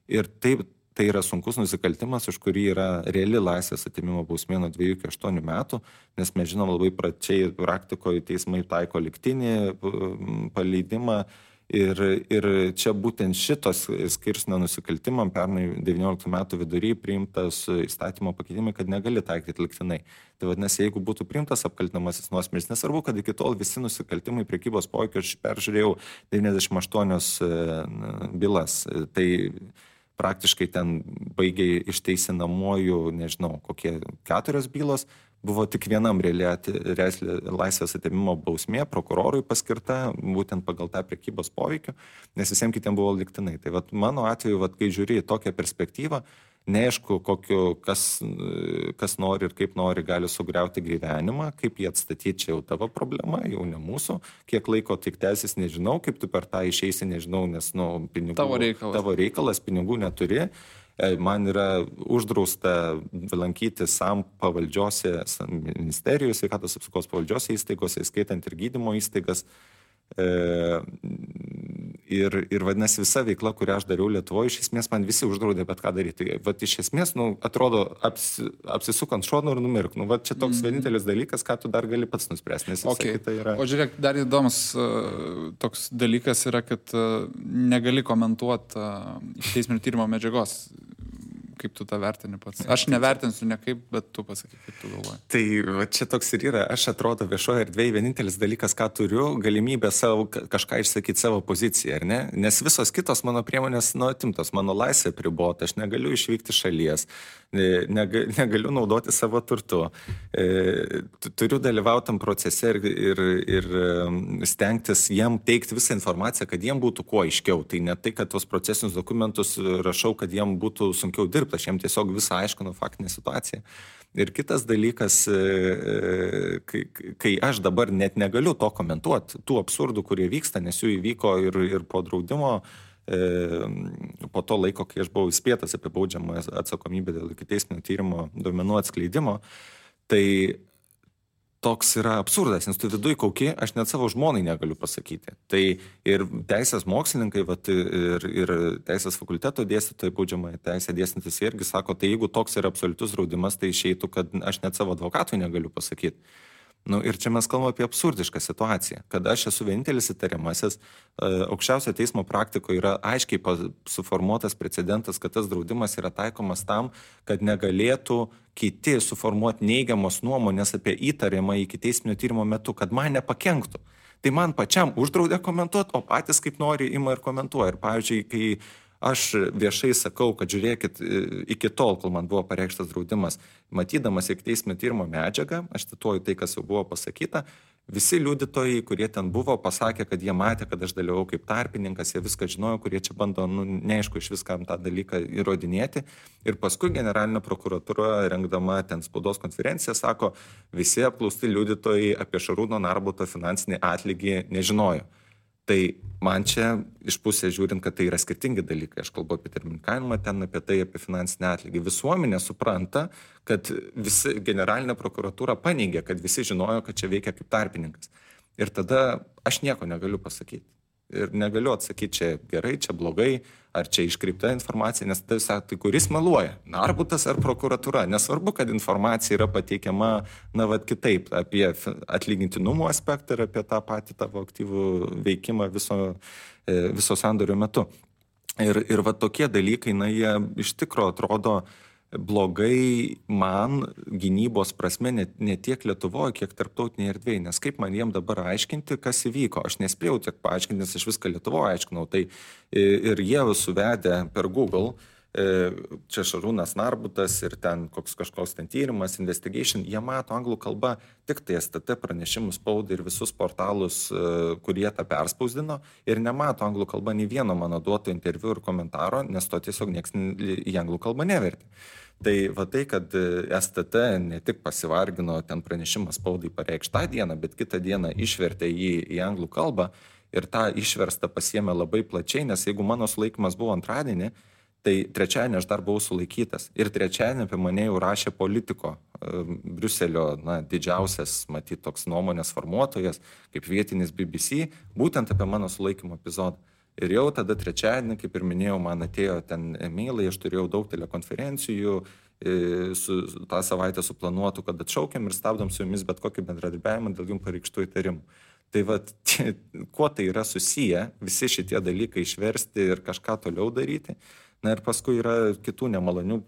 ir taip, tai yra sunkus nusikaltimas, už kurį yra reali laisvės atėmimo bausmė nuo 2 iki 8 metų, nes mes žinom labai pračiai praktikoje teismai taiko lygtinį paleidimą ir čia būtent šitos skirsnio nusikaltimam pernai 19 metų vidury priimtas įstatymo pakeitimai, kad negali taikyti lygtinai. Tai vadinasi, jeigu būtų priimtas apkaltinamasis nuosprendis, nesvarbu, kad iki tol visi nusikaltimai prekybos poveikiu, aš peržiūrėjau 98 bylas, tai praktiškai ten baigiai išteisinamuoju, nežinau, kokie 4 bylos, buvo tik vienam laisvės atėmimo bausmė prokurorui paskirta, būtent pagal tą prekybos poveikį, nes visiems kitiems buvo lygtinai. Tai mano atveju, kai žiūri į tokią perspektyvą, neaišku, kas nori ir kaip nori gali sugriauti gyvenimą, kaip jį atstatyti, čia jau tavo problema, jau ne mūsų, kiek laiko tik tęsis, nežinau, kaip tu per tą išeisi, nežinau, nes pinigų, tavo reikalas, pinigų neturi. man yra uždrausta lankyti SAM pavaldžiose ministerijos, sveikatos apsaugos pavaldžiose įstaigose, įskaitant ir gydymo įstaigas. Ir vadinasi, visa veikla, kurią aš dariau Lietuvoje, iš esmės man visi uždraudė bet ką daryti. Vat iš esmės, atrodo, apsisukant šonu ir numirk. Čia toks vienintelis dalykas, ką tu dar gali pats nuspręsti, nes visa kita yra... O žiūrėk, dar įdomus toks dalykas yra, kad negali komentuoti teisminio tyrimo medžiagos. Kaip tu tą vertini pats? Aš nevertinsiu nekaip, bet tu pasakyk, kaip tu galvoji. Tai va, čia toks ir yra. Aš atrodo viešoje erdvėje vienintelis dalykas, ką turiu, galimybę kažką išsakyti savo poziciją, ar ne? Nes visos kitos mano priemonės atimtos, mano laisvė pribota, aš negaliu išvykti šalies, negaliu naudoti savo turtu. Turiu dalyvauti tam procese ir stengtis jiem teikti visą informaciją, kad jiem būtų kuo aiškiau. Tai ne tai, kad tos procesinius dokumentus rašau, kad jiem būtų sunkiau dirbti. Aš jiems tiesiog visą aiškinu faktinę situaciją. Ir kitas dalykas, kai aš dabar net negaliu to komentuoti, tų absurdų, kurie vyksta, nes jų įvyko ir po draudimo, po to laiko, kai aš buvau įspėtas apie baudžiamą atsakomybę dėl ikiteisminio tyrimo duomenų atskleidimo, tai toks yra absurdas, nes tu viduj kauki, aš net savo žmonai negaliu pasakyti. Tai ir teisės mokslininkai, ir teisės fakulteto dėstytojai, baudžiamąją teisę dėstantis irgi sako, tai jeigu toks yra absoliutus draudimas, tai išeitų, kad aš net savo advokatui negaliu pasakyti. Ir čia mes kalbame apie absurdišką situaciją, kad aš esu vienintelis įtariamasis, aukščiausio teismo praktikoje yra aiškiai suformuotas precedentas, kad tas draudimas yra taikomas tam, kad negalėtų kiti suformuoti neigiamos nuomonės apie įtariamą ikiteisminio tyrimo metu, kad man nepakenktų. Tai man pačiam uždraudė komentuoti, o patys kaip nori ima ir komentuoja. Ir pavyzdžiui, kai aš viešai sakau, kad žiūrėkit, iki tol, kol man buvo pareikštas draudimas, matydamas ikiteisminio tyrimo medžiagą, aš cituoju tai, kas jau buvo pasakyta, visi liudytojai, kurie ten buvo, pasakė, kad jie matė, kad aš dalyvau kaip tarpininkas, jie viską žinojo, kurie čia bando, neaišku, iš viskam tą dalyką įrodinėti. Ir paskui generalinė prokuratūra, rengdama ten spaudos konferenciją, sako, visi apklausti liudytojai apie Šarūno Narbuto finansinį atlygį nežinojo. Tai man čia iš pusės žiūrint, kad tai yra skirtingi dalykai. Aš kalbu apie termininkavimą, ten apie tai, apie finansinį atlygį. Visuomenė supranta, kad visi generalinė prokuratūra paneigė, kad visi žinojo, kad čia veikia kaip tarpininkas. Ir tada aš nieko negaliu pasakyti. Ir negaliu atsakyti, čia gerai, čia blogai, ar čia iškreipta informacija, nes tai kuris meluoja, Narbutas ar prokuratūra. Nesvarbu, kad informacija yra pateikiama, kitaip, apie atlygintinumo aspektą ir apie tą patį tavo aktyvų veikimą viso sandorio metu. Ir tokie dalykai, jie iš tikro atrodo blogai man gynybos prasme ne tiek Lietuvoje, kiek tarptautinėje erdvėje, nes kaip man jiem dabar aiškinti, kas įvyko. Aš nespėjau tiek paaiškinti, nes aš viską Lietuvoje aiškinau. Tai ir jie suvedė per Google, čia Šarūnas Narbutas ir ten kažkoks ten tyrimas, investigation, jie mato anglų kalbą tik tai STT pranešimus spaudai ir visus portalus, kurie tą perspausdino, ir nemato anglų kalbą nei vieno mano duoto interviu ir komentaro, nes to tiesiog nieks į anglų kalbą nevertė. Tai tai, kad STT ne tik pasivargino ten pranešimą spaudai pareikšti tą dieną, bet kitą dieną išvertė jį į anglų kalbą ir tą išverstą pasiėmė labai plačiai, nes jeigu mano sulaikymas buvo antradienį, tai trečiadienį aš dar buvau sulaikytas. Ir trečiadienį apie mane jau rašė Politico, Briuselio didžiausias, matyt, toks nuomonės formuotojas, kaip vietinis BBC, būtent apie mano sulaikymo epizodą. Ir jau tada trečiadienį, kaip ir minėjau, man atėjo ten e-mailai, aš turėjau daug telekonferencijų, tą savaitę suplanuotų, kad atšaukiam ir stabdom su jumis bet kokį bendradarbiavimą dėl jums pareikštų įtarimų. Tai kuo tai yra susiję, visi šitie dalykai išversti ir kažką toliau daryti. Ir paskui yra kitų nemalonių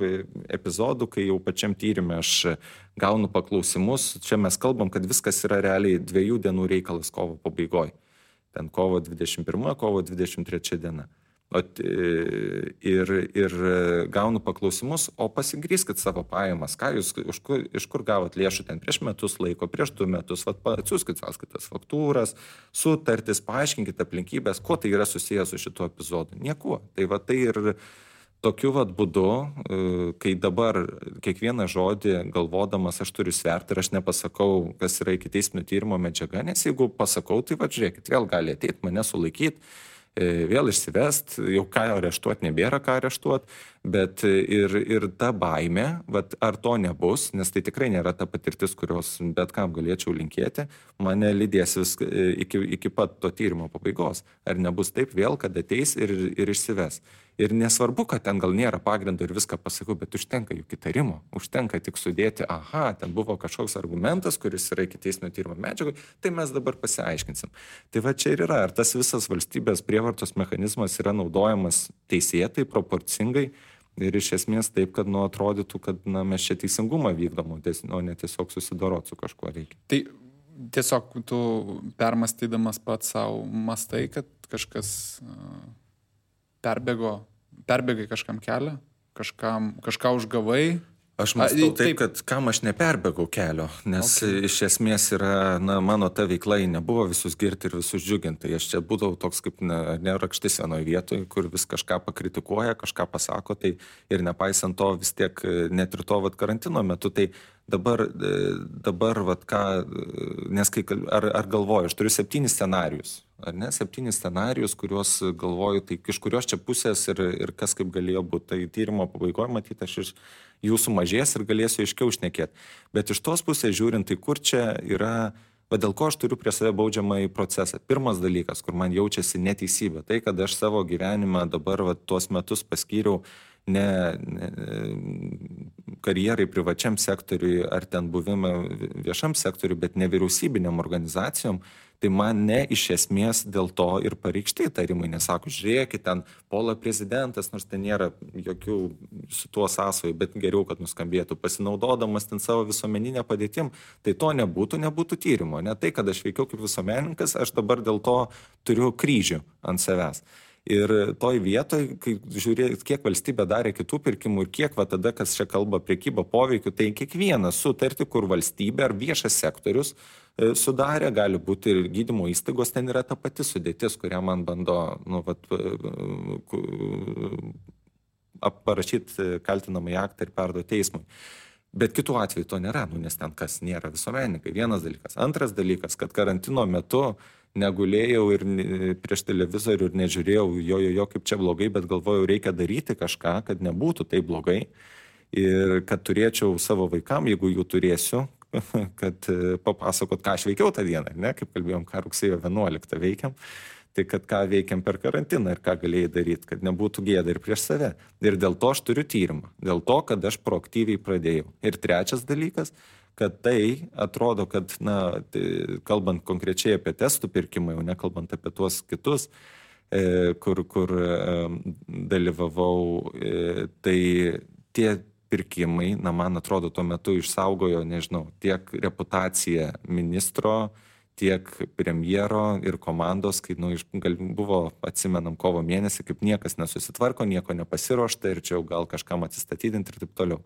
epizodų, kai jau pačiam tyrimė aš gaunu paklausimus. Čia mes kalbam, kad viskas yra realiai 2 dienų reikalas kovo pabaigoje. Ten kovo 21, kovo 23 diena. Ir gaunu paklausimus, o pasigrįskit savo pajamas, ką jūs, iš kur gavot lėšų ten prieš metus laiko, prieš 2 metus, atsiųskit sąskaitas, faktūras, sutartis, paaiškinkit aplinkybės, kuo tai yra susijęs su šituo epizodu. Niekuo. Tai ir tokiu būdu, kai dabar kiekvieną žodį galvodamas aš turiu sverti ir aš nepasakau, kas yra ikiteisminio tyrimo medžiaga, nes jeigu pasakau, tai žiūrėkit, vėl gali ateiti, mane sulaikyti, vėl išsivest, jau ką areštuoti, nebėra ką areštuoti, Bet ir ta baimė, vat, ar to nebus, nes tai tikrai nėra ta patirtis, kurios bet kam galėčiau linkėti, mane lydės vis iki pat to tyrimo pabaigos. Ar nebus taip vėl, kad ateis ir išsives. Ir nesvarbu, kad ten gal nėra pagrindo ir viską pasakau, bet užtenka juk įtarimo, užtenka tik sudėti, aha, ten buvo kažkoks argumentas, kuris yra ikiteisminio tyrimo medžiagoj, tai mes dabar pasiaiškinsim. Tai va čia ir yra, ar tas visas valstybės prievartos mechanizmas yra naudojamas teisėtai, proporcingai ir iš esmės taip, kad atrodytų, kad mes čia teisingumą vykdom, o ne tiesiog susidorot su kažkuo reikia. Tai tiesiog tu permastydamas pats savo mastai, kad kažkas perbėgai kažkam kelią, kažką užgavai. Aš mąstau taip, kad kam aš neperbėgau kelio, nes iš esmės yra, mano ta veikla nebuvo visus girti ir visus džiuginti. Aš čia būdavau toks kaip nerakštis vienoje vietoje, kur vis kažką pakritikuoja, kažką pasako, tai ir nepaisant to vis tiek net ir to karantino metu, tai dabar ką, nes ar galvoju, aš turiu 7 scenarijus. Ar ne, 7 scenarijus, kuriuos galvoju, tai iš kurios čia pusės ir kas kaip galėjo būti. Tai tyrimo pabaigoje matyti, aš iš jų sumažės ir galėsiu aiškiau šnekėti. Bet iš tos pusės žiūrint, tai kur čia yra, dėl ko aš turiu prie save baudžiamąjį procesą. Pirmas dalykas, kur man jaučiasi neteisybė, tai kad aš savo gyvenimą dabar tuos metus paskyriau ne karjerai privačiam sektoriui ar ten buvimą viešam sektoriui, bet nevyriausybiniam organizacijom, tai man ne iš esmės dėl to ir pareikšti įtarimai, nesako, žiūrėkit, ten puola prezidentas, nors ten nėra jokių su tuo sąsojų, bet geriau, kad nuskambėtų, pasinaudodamas ten savo visuomeninę padėtim, tai to nebūtų tyrimo. Ne tai, kad aš veikiau kaip visuomenininkas, aš dabar dėl to turiu kryžių ant savęs. Ir toj vietoj, kai žiūrėt, kiek valstybė darė kitų pirkimų ir kiek tada, kas čia kalba prekyba poveikiu, tai kiekvieną sutartį, kur valstybė ar viešas sektorius sudarė, gali būti ir gydymo įstaigos, ten yra ta pati sudėtis, kurią man bando parašyti kaltinamąjį aktą ir perduoti teismui. Bet kitų atveju to nėra, nes ten kas nėra visuomenininkai. Vienas dalykas. Antras dalykas, kad karantino metu negulėjau ir prieš televizorių ir nežiūrėjau jo kaip čia blogai, bet galvojau, reikia daryti kažką, kad nebūtų taip blogai ir kad turėčiau savo vaikam, jeigu jų turėsiu, kad papasakot, ką aš veikiau tą dieną, ne, kaip kalbėjom, ką rugsėjo 11 veikiam, tai kad ką veikiam per karantiną ir ką galėjai daryti, kad nebūtų gėda ir prieš save. Ir dėl to aš turiu tyrimą, dėl to, kad aš proaktyviai pradėjau. Ir trečias dalykas, kad tai atrodo, kad, kalbant konkrečiai apie testų pirkimą, jau nekalbant apie tuos kitus, kur dalyvavau, tai tie pirkimai, man atrodo, tuo metu išsaugojo, nežinau, tiek reputaciją ministro, tiek premjero ir komandos, kai buvo, atsimenam, kovo mėnesį, kaip niekas nesusitvarko, nieko nepasiruošta ir čia jau gal kažkam atsistatydinti ir taip toliau.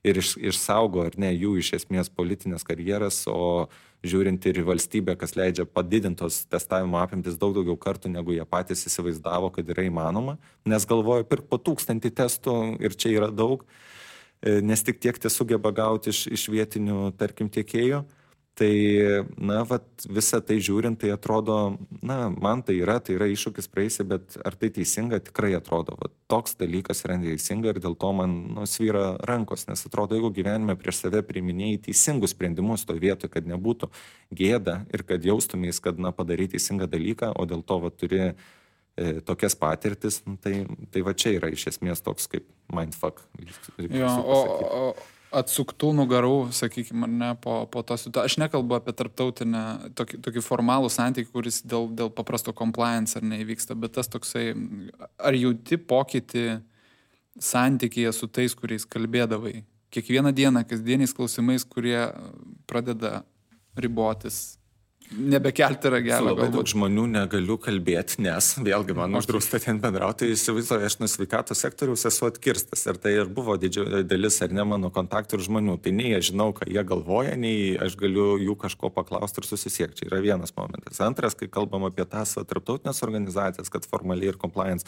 Ir išsaugo, ar ne, jų iš esmės politinės karjeras, o žiūrint ir į valstybę, kas leidžia padidintos testavimo apimtis daug daugiau kartų, negu jie patys įsivaizdavo, kad yra įmanoma, nes galvoju, pirk po 1000 testų ir čia yra daug, nes tik tiek tie sugeba gauti iš vietinių, tarkim, tiekėjų. Tai, visą tai žiūrint, tai atrodo, man tai yra iššūkis praeisi, bet ar tai teisinga, tikrai atrodo. Toks dalykas yra neteisinga ir dėl to man svyra rankos, nes atrodo, jeigu gyvenime prieš save priiminėjai teisingus sprendimus to vietoje, kad nebūtų gėda ir kad jaustumės, kad padarai teisingą dalyką, o dėl to turi tokias patirtis, tai čia yra iš esmės toks kaip mindfuck. Jo, atsuktų nugarų, sakykime, ar ne, po to situacijos. Aš nekalbu apie tarptautinę, tokį formalų santykį, kuris dėl paprasto compliance ar neįvyksta, bet tas toksai, ar jauti pokytį santykyje su tais, kuriais kalbėdavai? Kiekvieną dieną, kasdieniais klausimais, kurie pradeda ribotis. Nebekelti ragelio. Labai daug žmonių negaliu kalbėti, nes vėlgi man uždrausta ten bendrauti, įsivaizduoju, aš nuo sveikatos sektoriaus esu atkirstas ir tai ir buvo didžioji dalis ar ne mano kontaktų ir žmonių. Tai nei aš žinau, ką jie galvoja, nei aš galiu jų kažko paklausti ir susisiekti. Čia yra vienas momentas. Antras, kai kalbam apie tas tarptautinės organizacijas, kad formaliai ir compliance,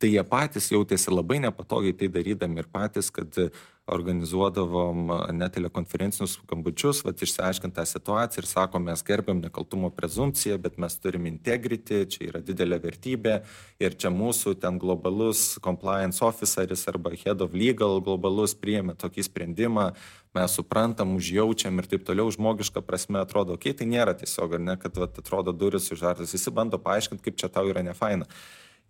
tai jie patys jautėsi labai nepatogiai tai darydami ir patys, kad organizuodavom net telekonferencinius skambučius, išsiaiškint tą situaciją ir sakom, mes gerbiam nekaltumo prezumpciją, bet mes turim integrity, čia yra didelė vertybė ir čia mūsų ten globalus compliance officeris arba head of legal globalus priėmė tokį sprendimą, mes suprantam, užjaučiam ir taip toliau, žmogiška prasme atrodo, tai nėra tiesiog, ar ne, kad atrodo duris užartas, visi bando paaiškinti, kaip čia tau yra nefaina.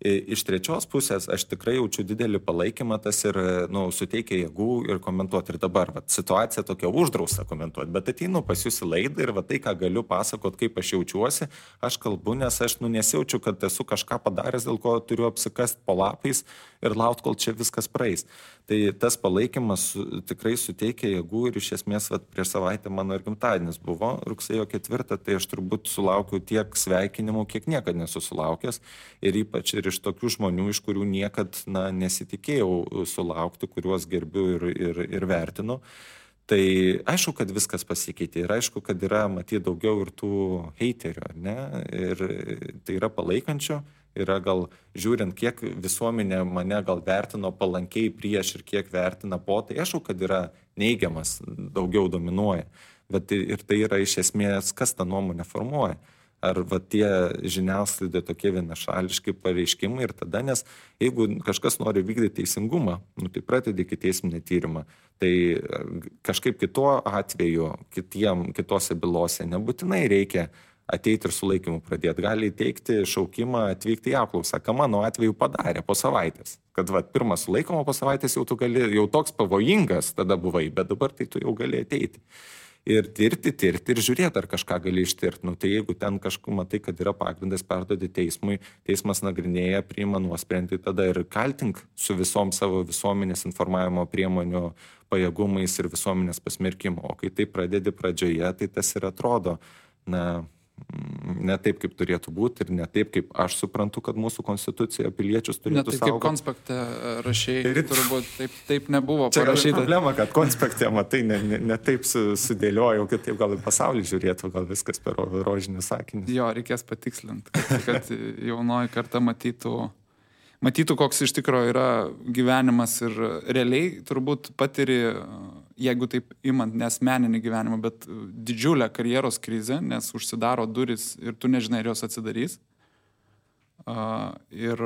Iš trečios pusės aš tikrai jaučiu didelį palaikymą, tas ir suteikia jėgų ir komentuoti. Ir dabar situacija tokia uždrausta komentuoti, bet ateinu pas jūs į laidą ir tai, ką galiu pasakot, kaip aš jaučiuosi, aš kalbu, nes aš nesijaučiu, kad esu kažką padaręs, dėl ko turiu apsikast po lapais ir laukti, kol čia viskas praeis. Tai tas palaikymas tikrai suteikia jėgų ir iš esmės prieš savaitę mano ir gimtadienis buvo, rugsėjo 4, tai aš turbūt sulaukiu tiek sveikinimų, kiek niekad nesu sulaukęs ir ypač ir iš tokių žmonių, iš kurių niekad nesitikėjau sulaukti, kuriuos gerbiu ir vertinu. Tai aišku, kad viskas pasikeitė ir aišku, kad yra matyti daugiau ir tų heiterių, ne? Ir tai yra palaikančių, yra gal žiūrint, kiek visuomenė mane gal vertino palankiai prieš ir kiek vertina po, tai aišku, kad yra neigiamas, daugiau dominuoja. Bet ir tai yra iš esmės, kas tą nuomonę formuoja. Ar tie žiniasklaidai tokie vienašališki pareiškimai ir tada, nes jeigu kažkas nori vykdyti teisingumą, tai pradedi ikiteisminį tyrimą, tai kažkaip kituo atveju, kitose bylose nebūtinai reikia ateiti ir sulaikymu pradėti. Gali teikti šaukimą atvykti į apklausą, ką mano atveju padarė po savaitės. Kad pirmą sulaikymą po savaitės jau tu gali, jau toks pavojingas tada buvai, bet dabar tai tu jau gali ateiti. Ir tirti ir žiūrėti, ar kažką gali ištirti. Tai jeigu ten kažkur matai, kad yra pagrindas perduoti teismui, teismas nagrinėja, priima nuosprendį, tada ir kaltink su visom savo visuomenės informavimo priemonių pajėgumais ir visuomenės pasmerkimo. O kai tai pradedi pradžioje, tai tas ir atrodo, ne taip, kaip turėtų būti ir ne taip, kaip aš suprantu, kad mūsų konstitucija piliečius turėtų saugoti. Ne taip, kaip konspekte rašėjai, turbūt taip nebuvo parašyta. Čia yra problema, kad konspekte, matai, ne taip sudėliojau, kad taip gal į pasaulį žiūrėtų, gal viskas per rožinius sakinius. Jo, reikės patikslinti, kad jaunoji karta matytų, koks iš tikrųjų yra gyvenimas ir realiai turbūt patiri, jeigu taip imant nesmeninį gyvenimą, bet didžiulę karjeros krizę, nes užsidaro duris ir tu nežinai, ar jos atsidarys. Ir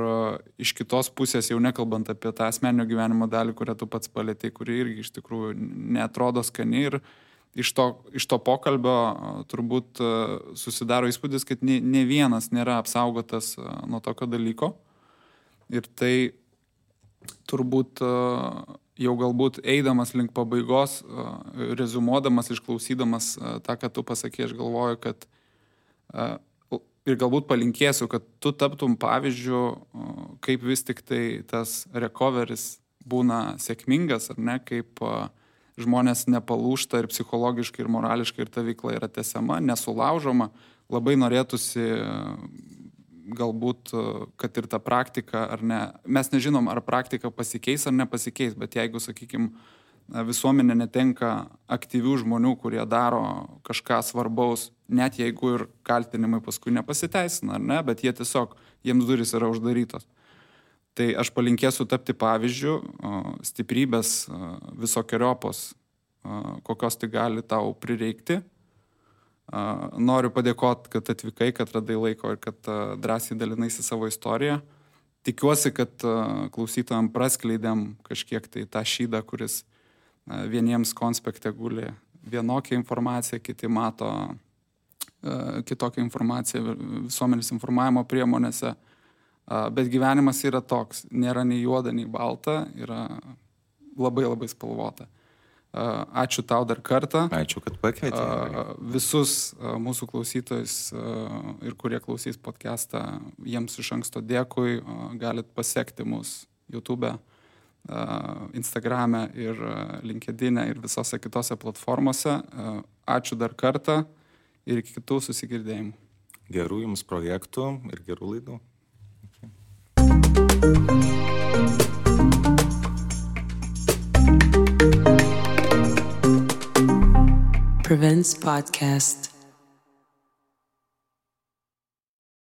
iš kitos pusės, jau nekalbant apie tą asmeninio gyvenimo dalį, kurią tu pats palėtei, kuri irgi iš tikrųjų neatrodo skani ir iš to pokalbio turbūt susidaro įspūdis, kad ne vienas nėra apsaugotas nuo tokio dalyko. Ir tai turbūt jau galbūt eidamas link pabaigos, rezumuodamas, išklausydamas tą, ką tu pasakė, aš galvoju, kad ir galbūt palinkėsiu, kad tu taptum pavyzdžiu, kaip vis tik tai tas recoveris būna sėkmingas, ar ne, kaip žmonės nepalūžta ir psichologiškai, ir morališkai, ir ta veikla yra tęsiama, nesulaužoma. Labai norėtųsi galbūt, kad ir ta praktika, ar ne, mes nežinom, ar praktika pasikeis ar nepasikeis, bet jeigu, sakykime, visuomenė netenka aktyvių žmonių, kurie daro kažką svarbaus, net jeigu ir kaltinimai paskui nepasiteisina, ar ne, bet jie tiesiog, jiems durys yra uždarytos. Tai aš palinkėsiu tapti pavyzdžių, stiprybės visokiojopos, kokios tai gali tau prireikti. Noriu padėkoti, kad atvykai, kad radai laiko ir kad drąsiai dalinaisi savo istoriją. Tikiuosi, kad klausytojams praskleidėm kažkiek tai tą šydą, kuris vieniems konspekte guli vienokią informaciją, kiti mato kitokią informaciją visuomenės informavimo priemonėse. Bet gyvenimas yra toks, nėra nei juoda, nei balta, yra labai labai spalvota. Ačiū tau dar kartą. Ačiū, kad pakvietei. Visus mūsų klausytojus ir kurie klausys podcastą, jiems iš anksto dėkui. Galit pasekti mus YouTube, Instagrame ir LinkedIn ir visose kitose platformose. Ačiū dar kartą ir iki kitų susigirdėjimų. Gerų jums projektų ir gerų laidų. Prevents Podcast.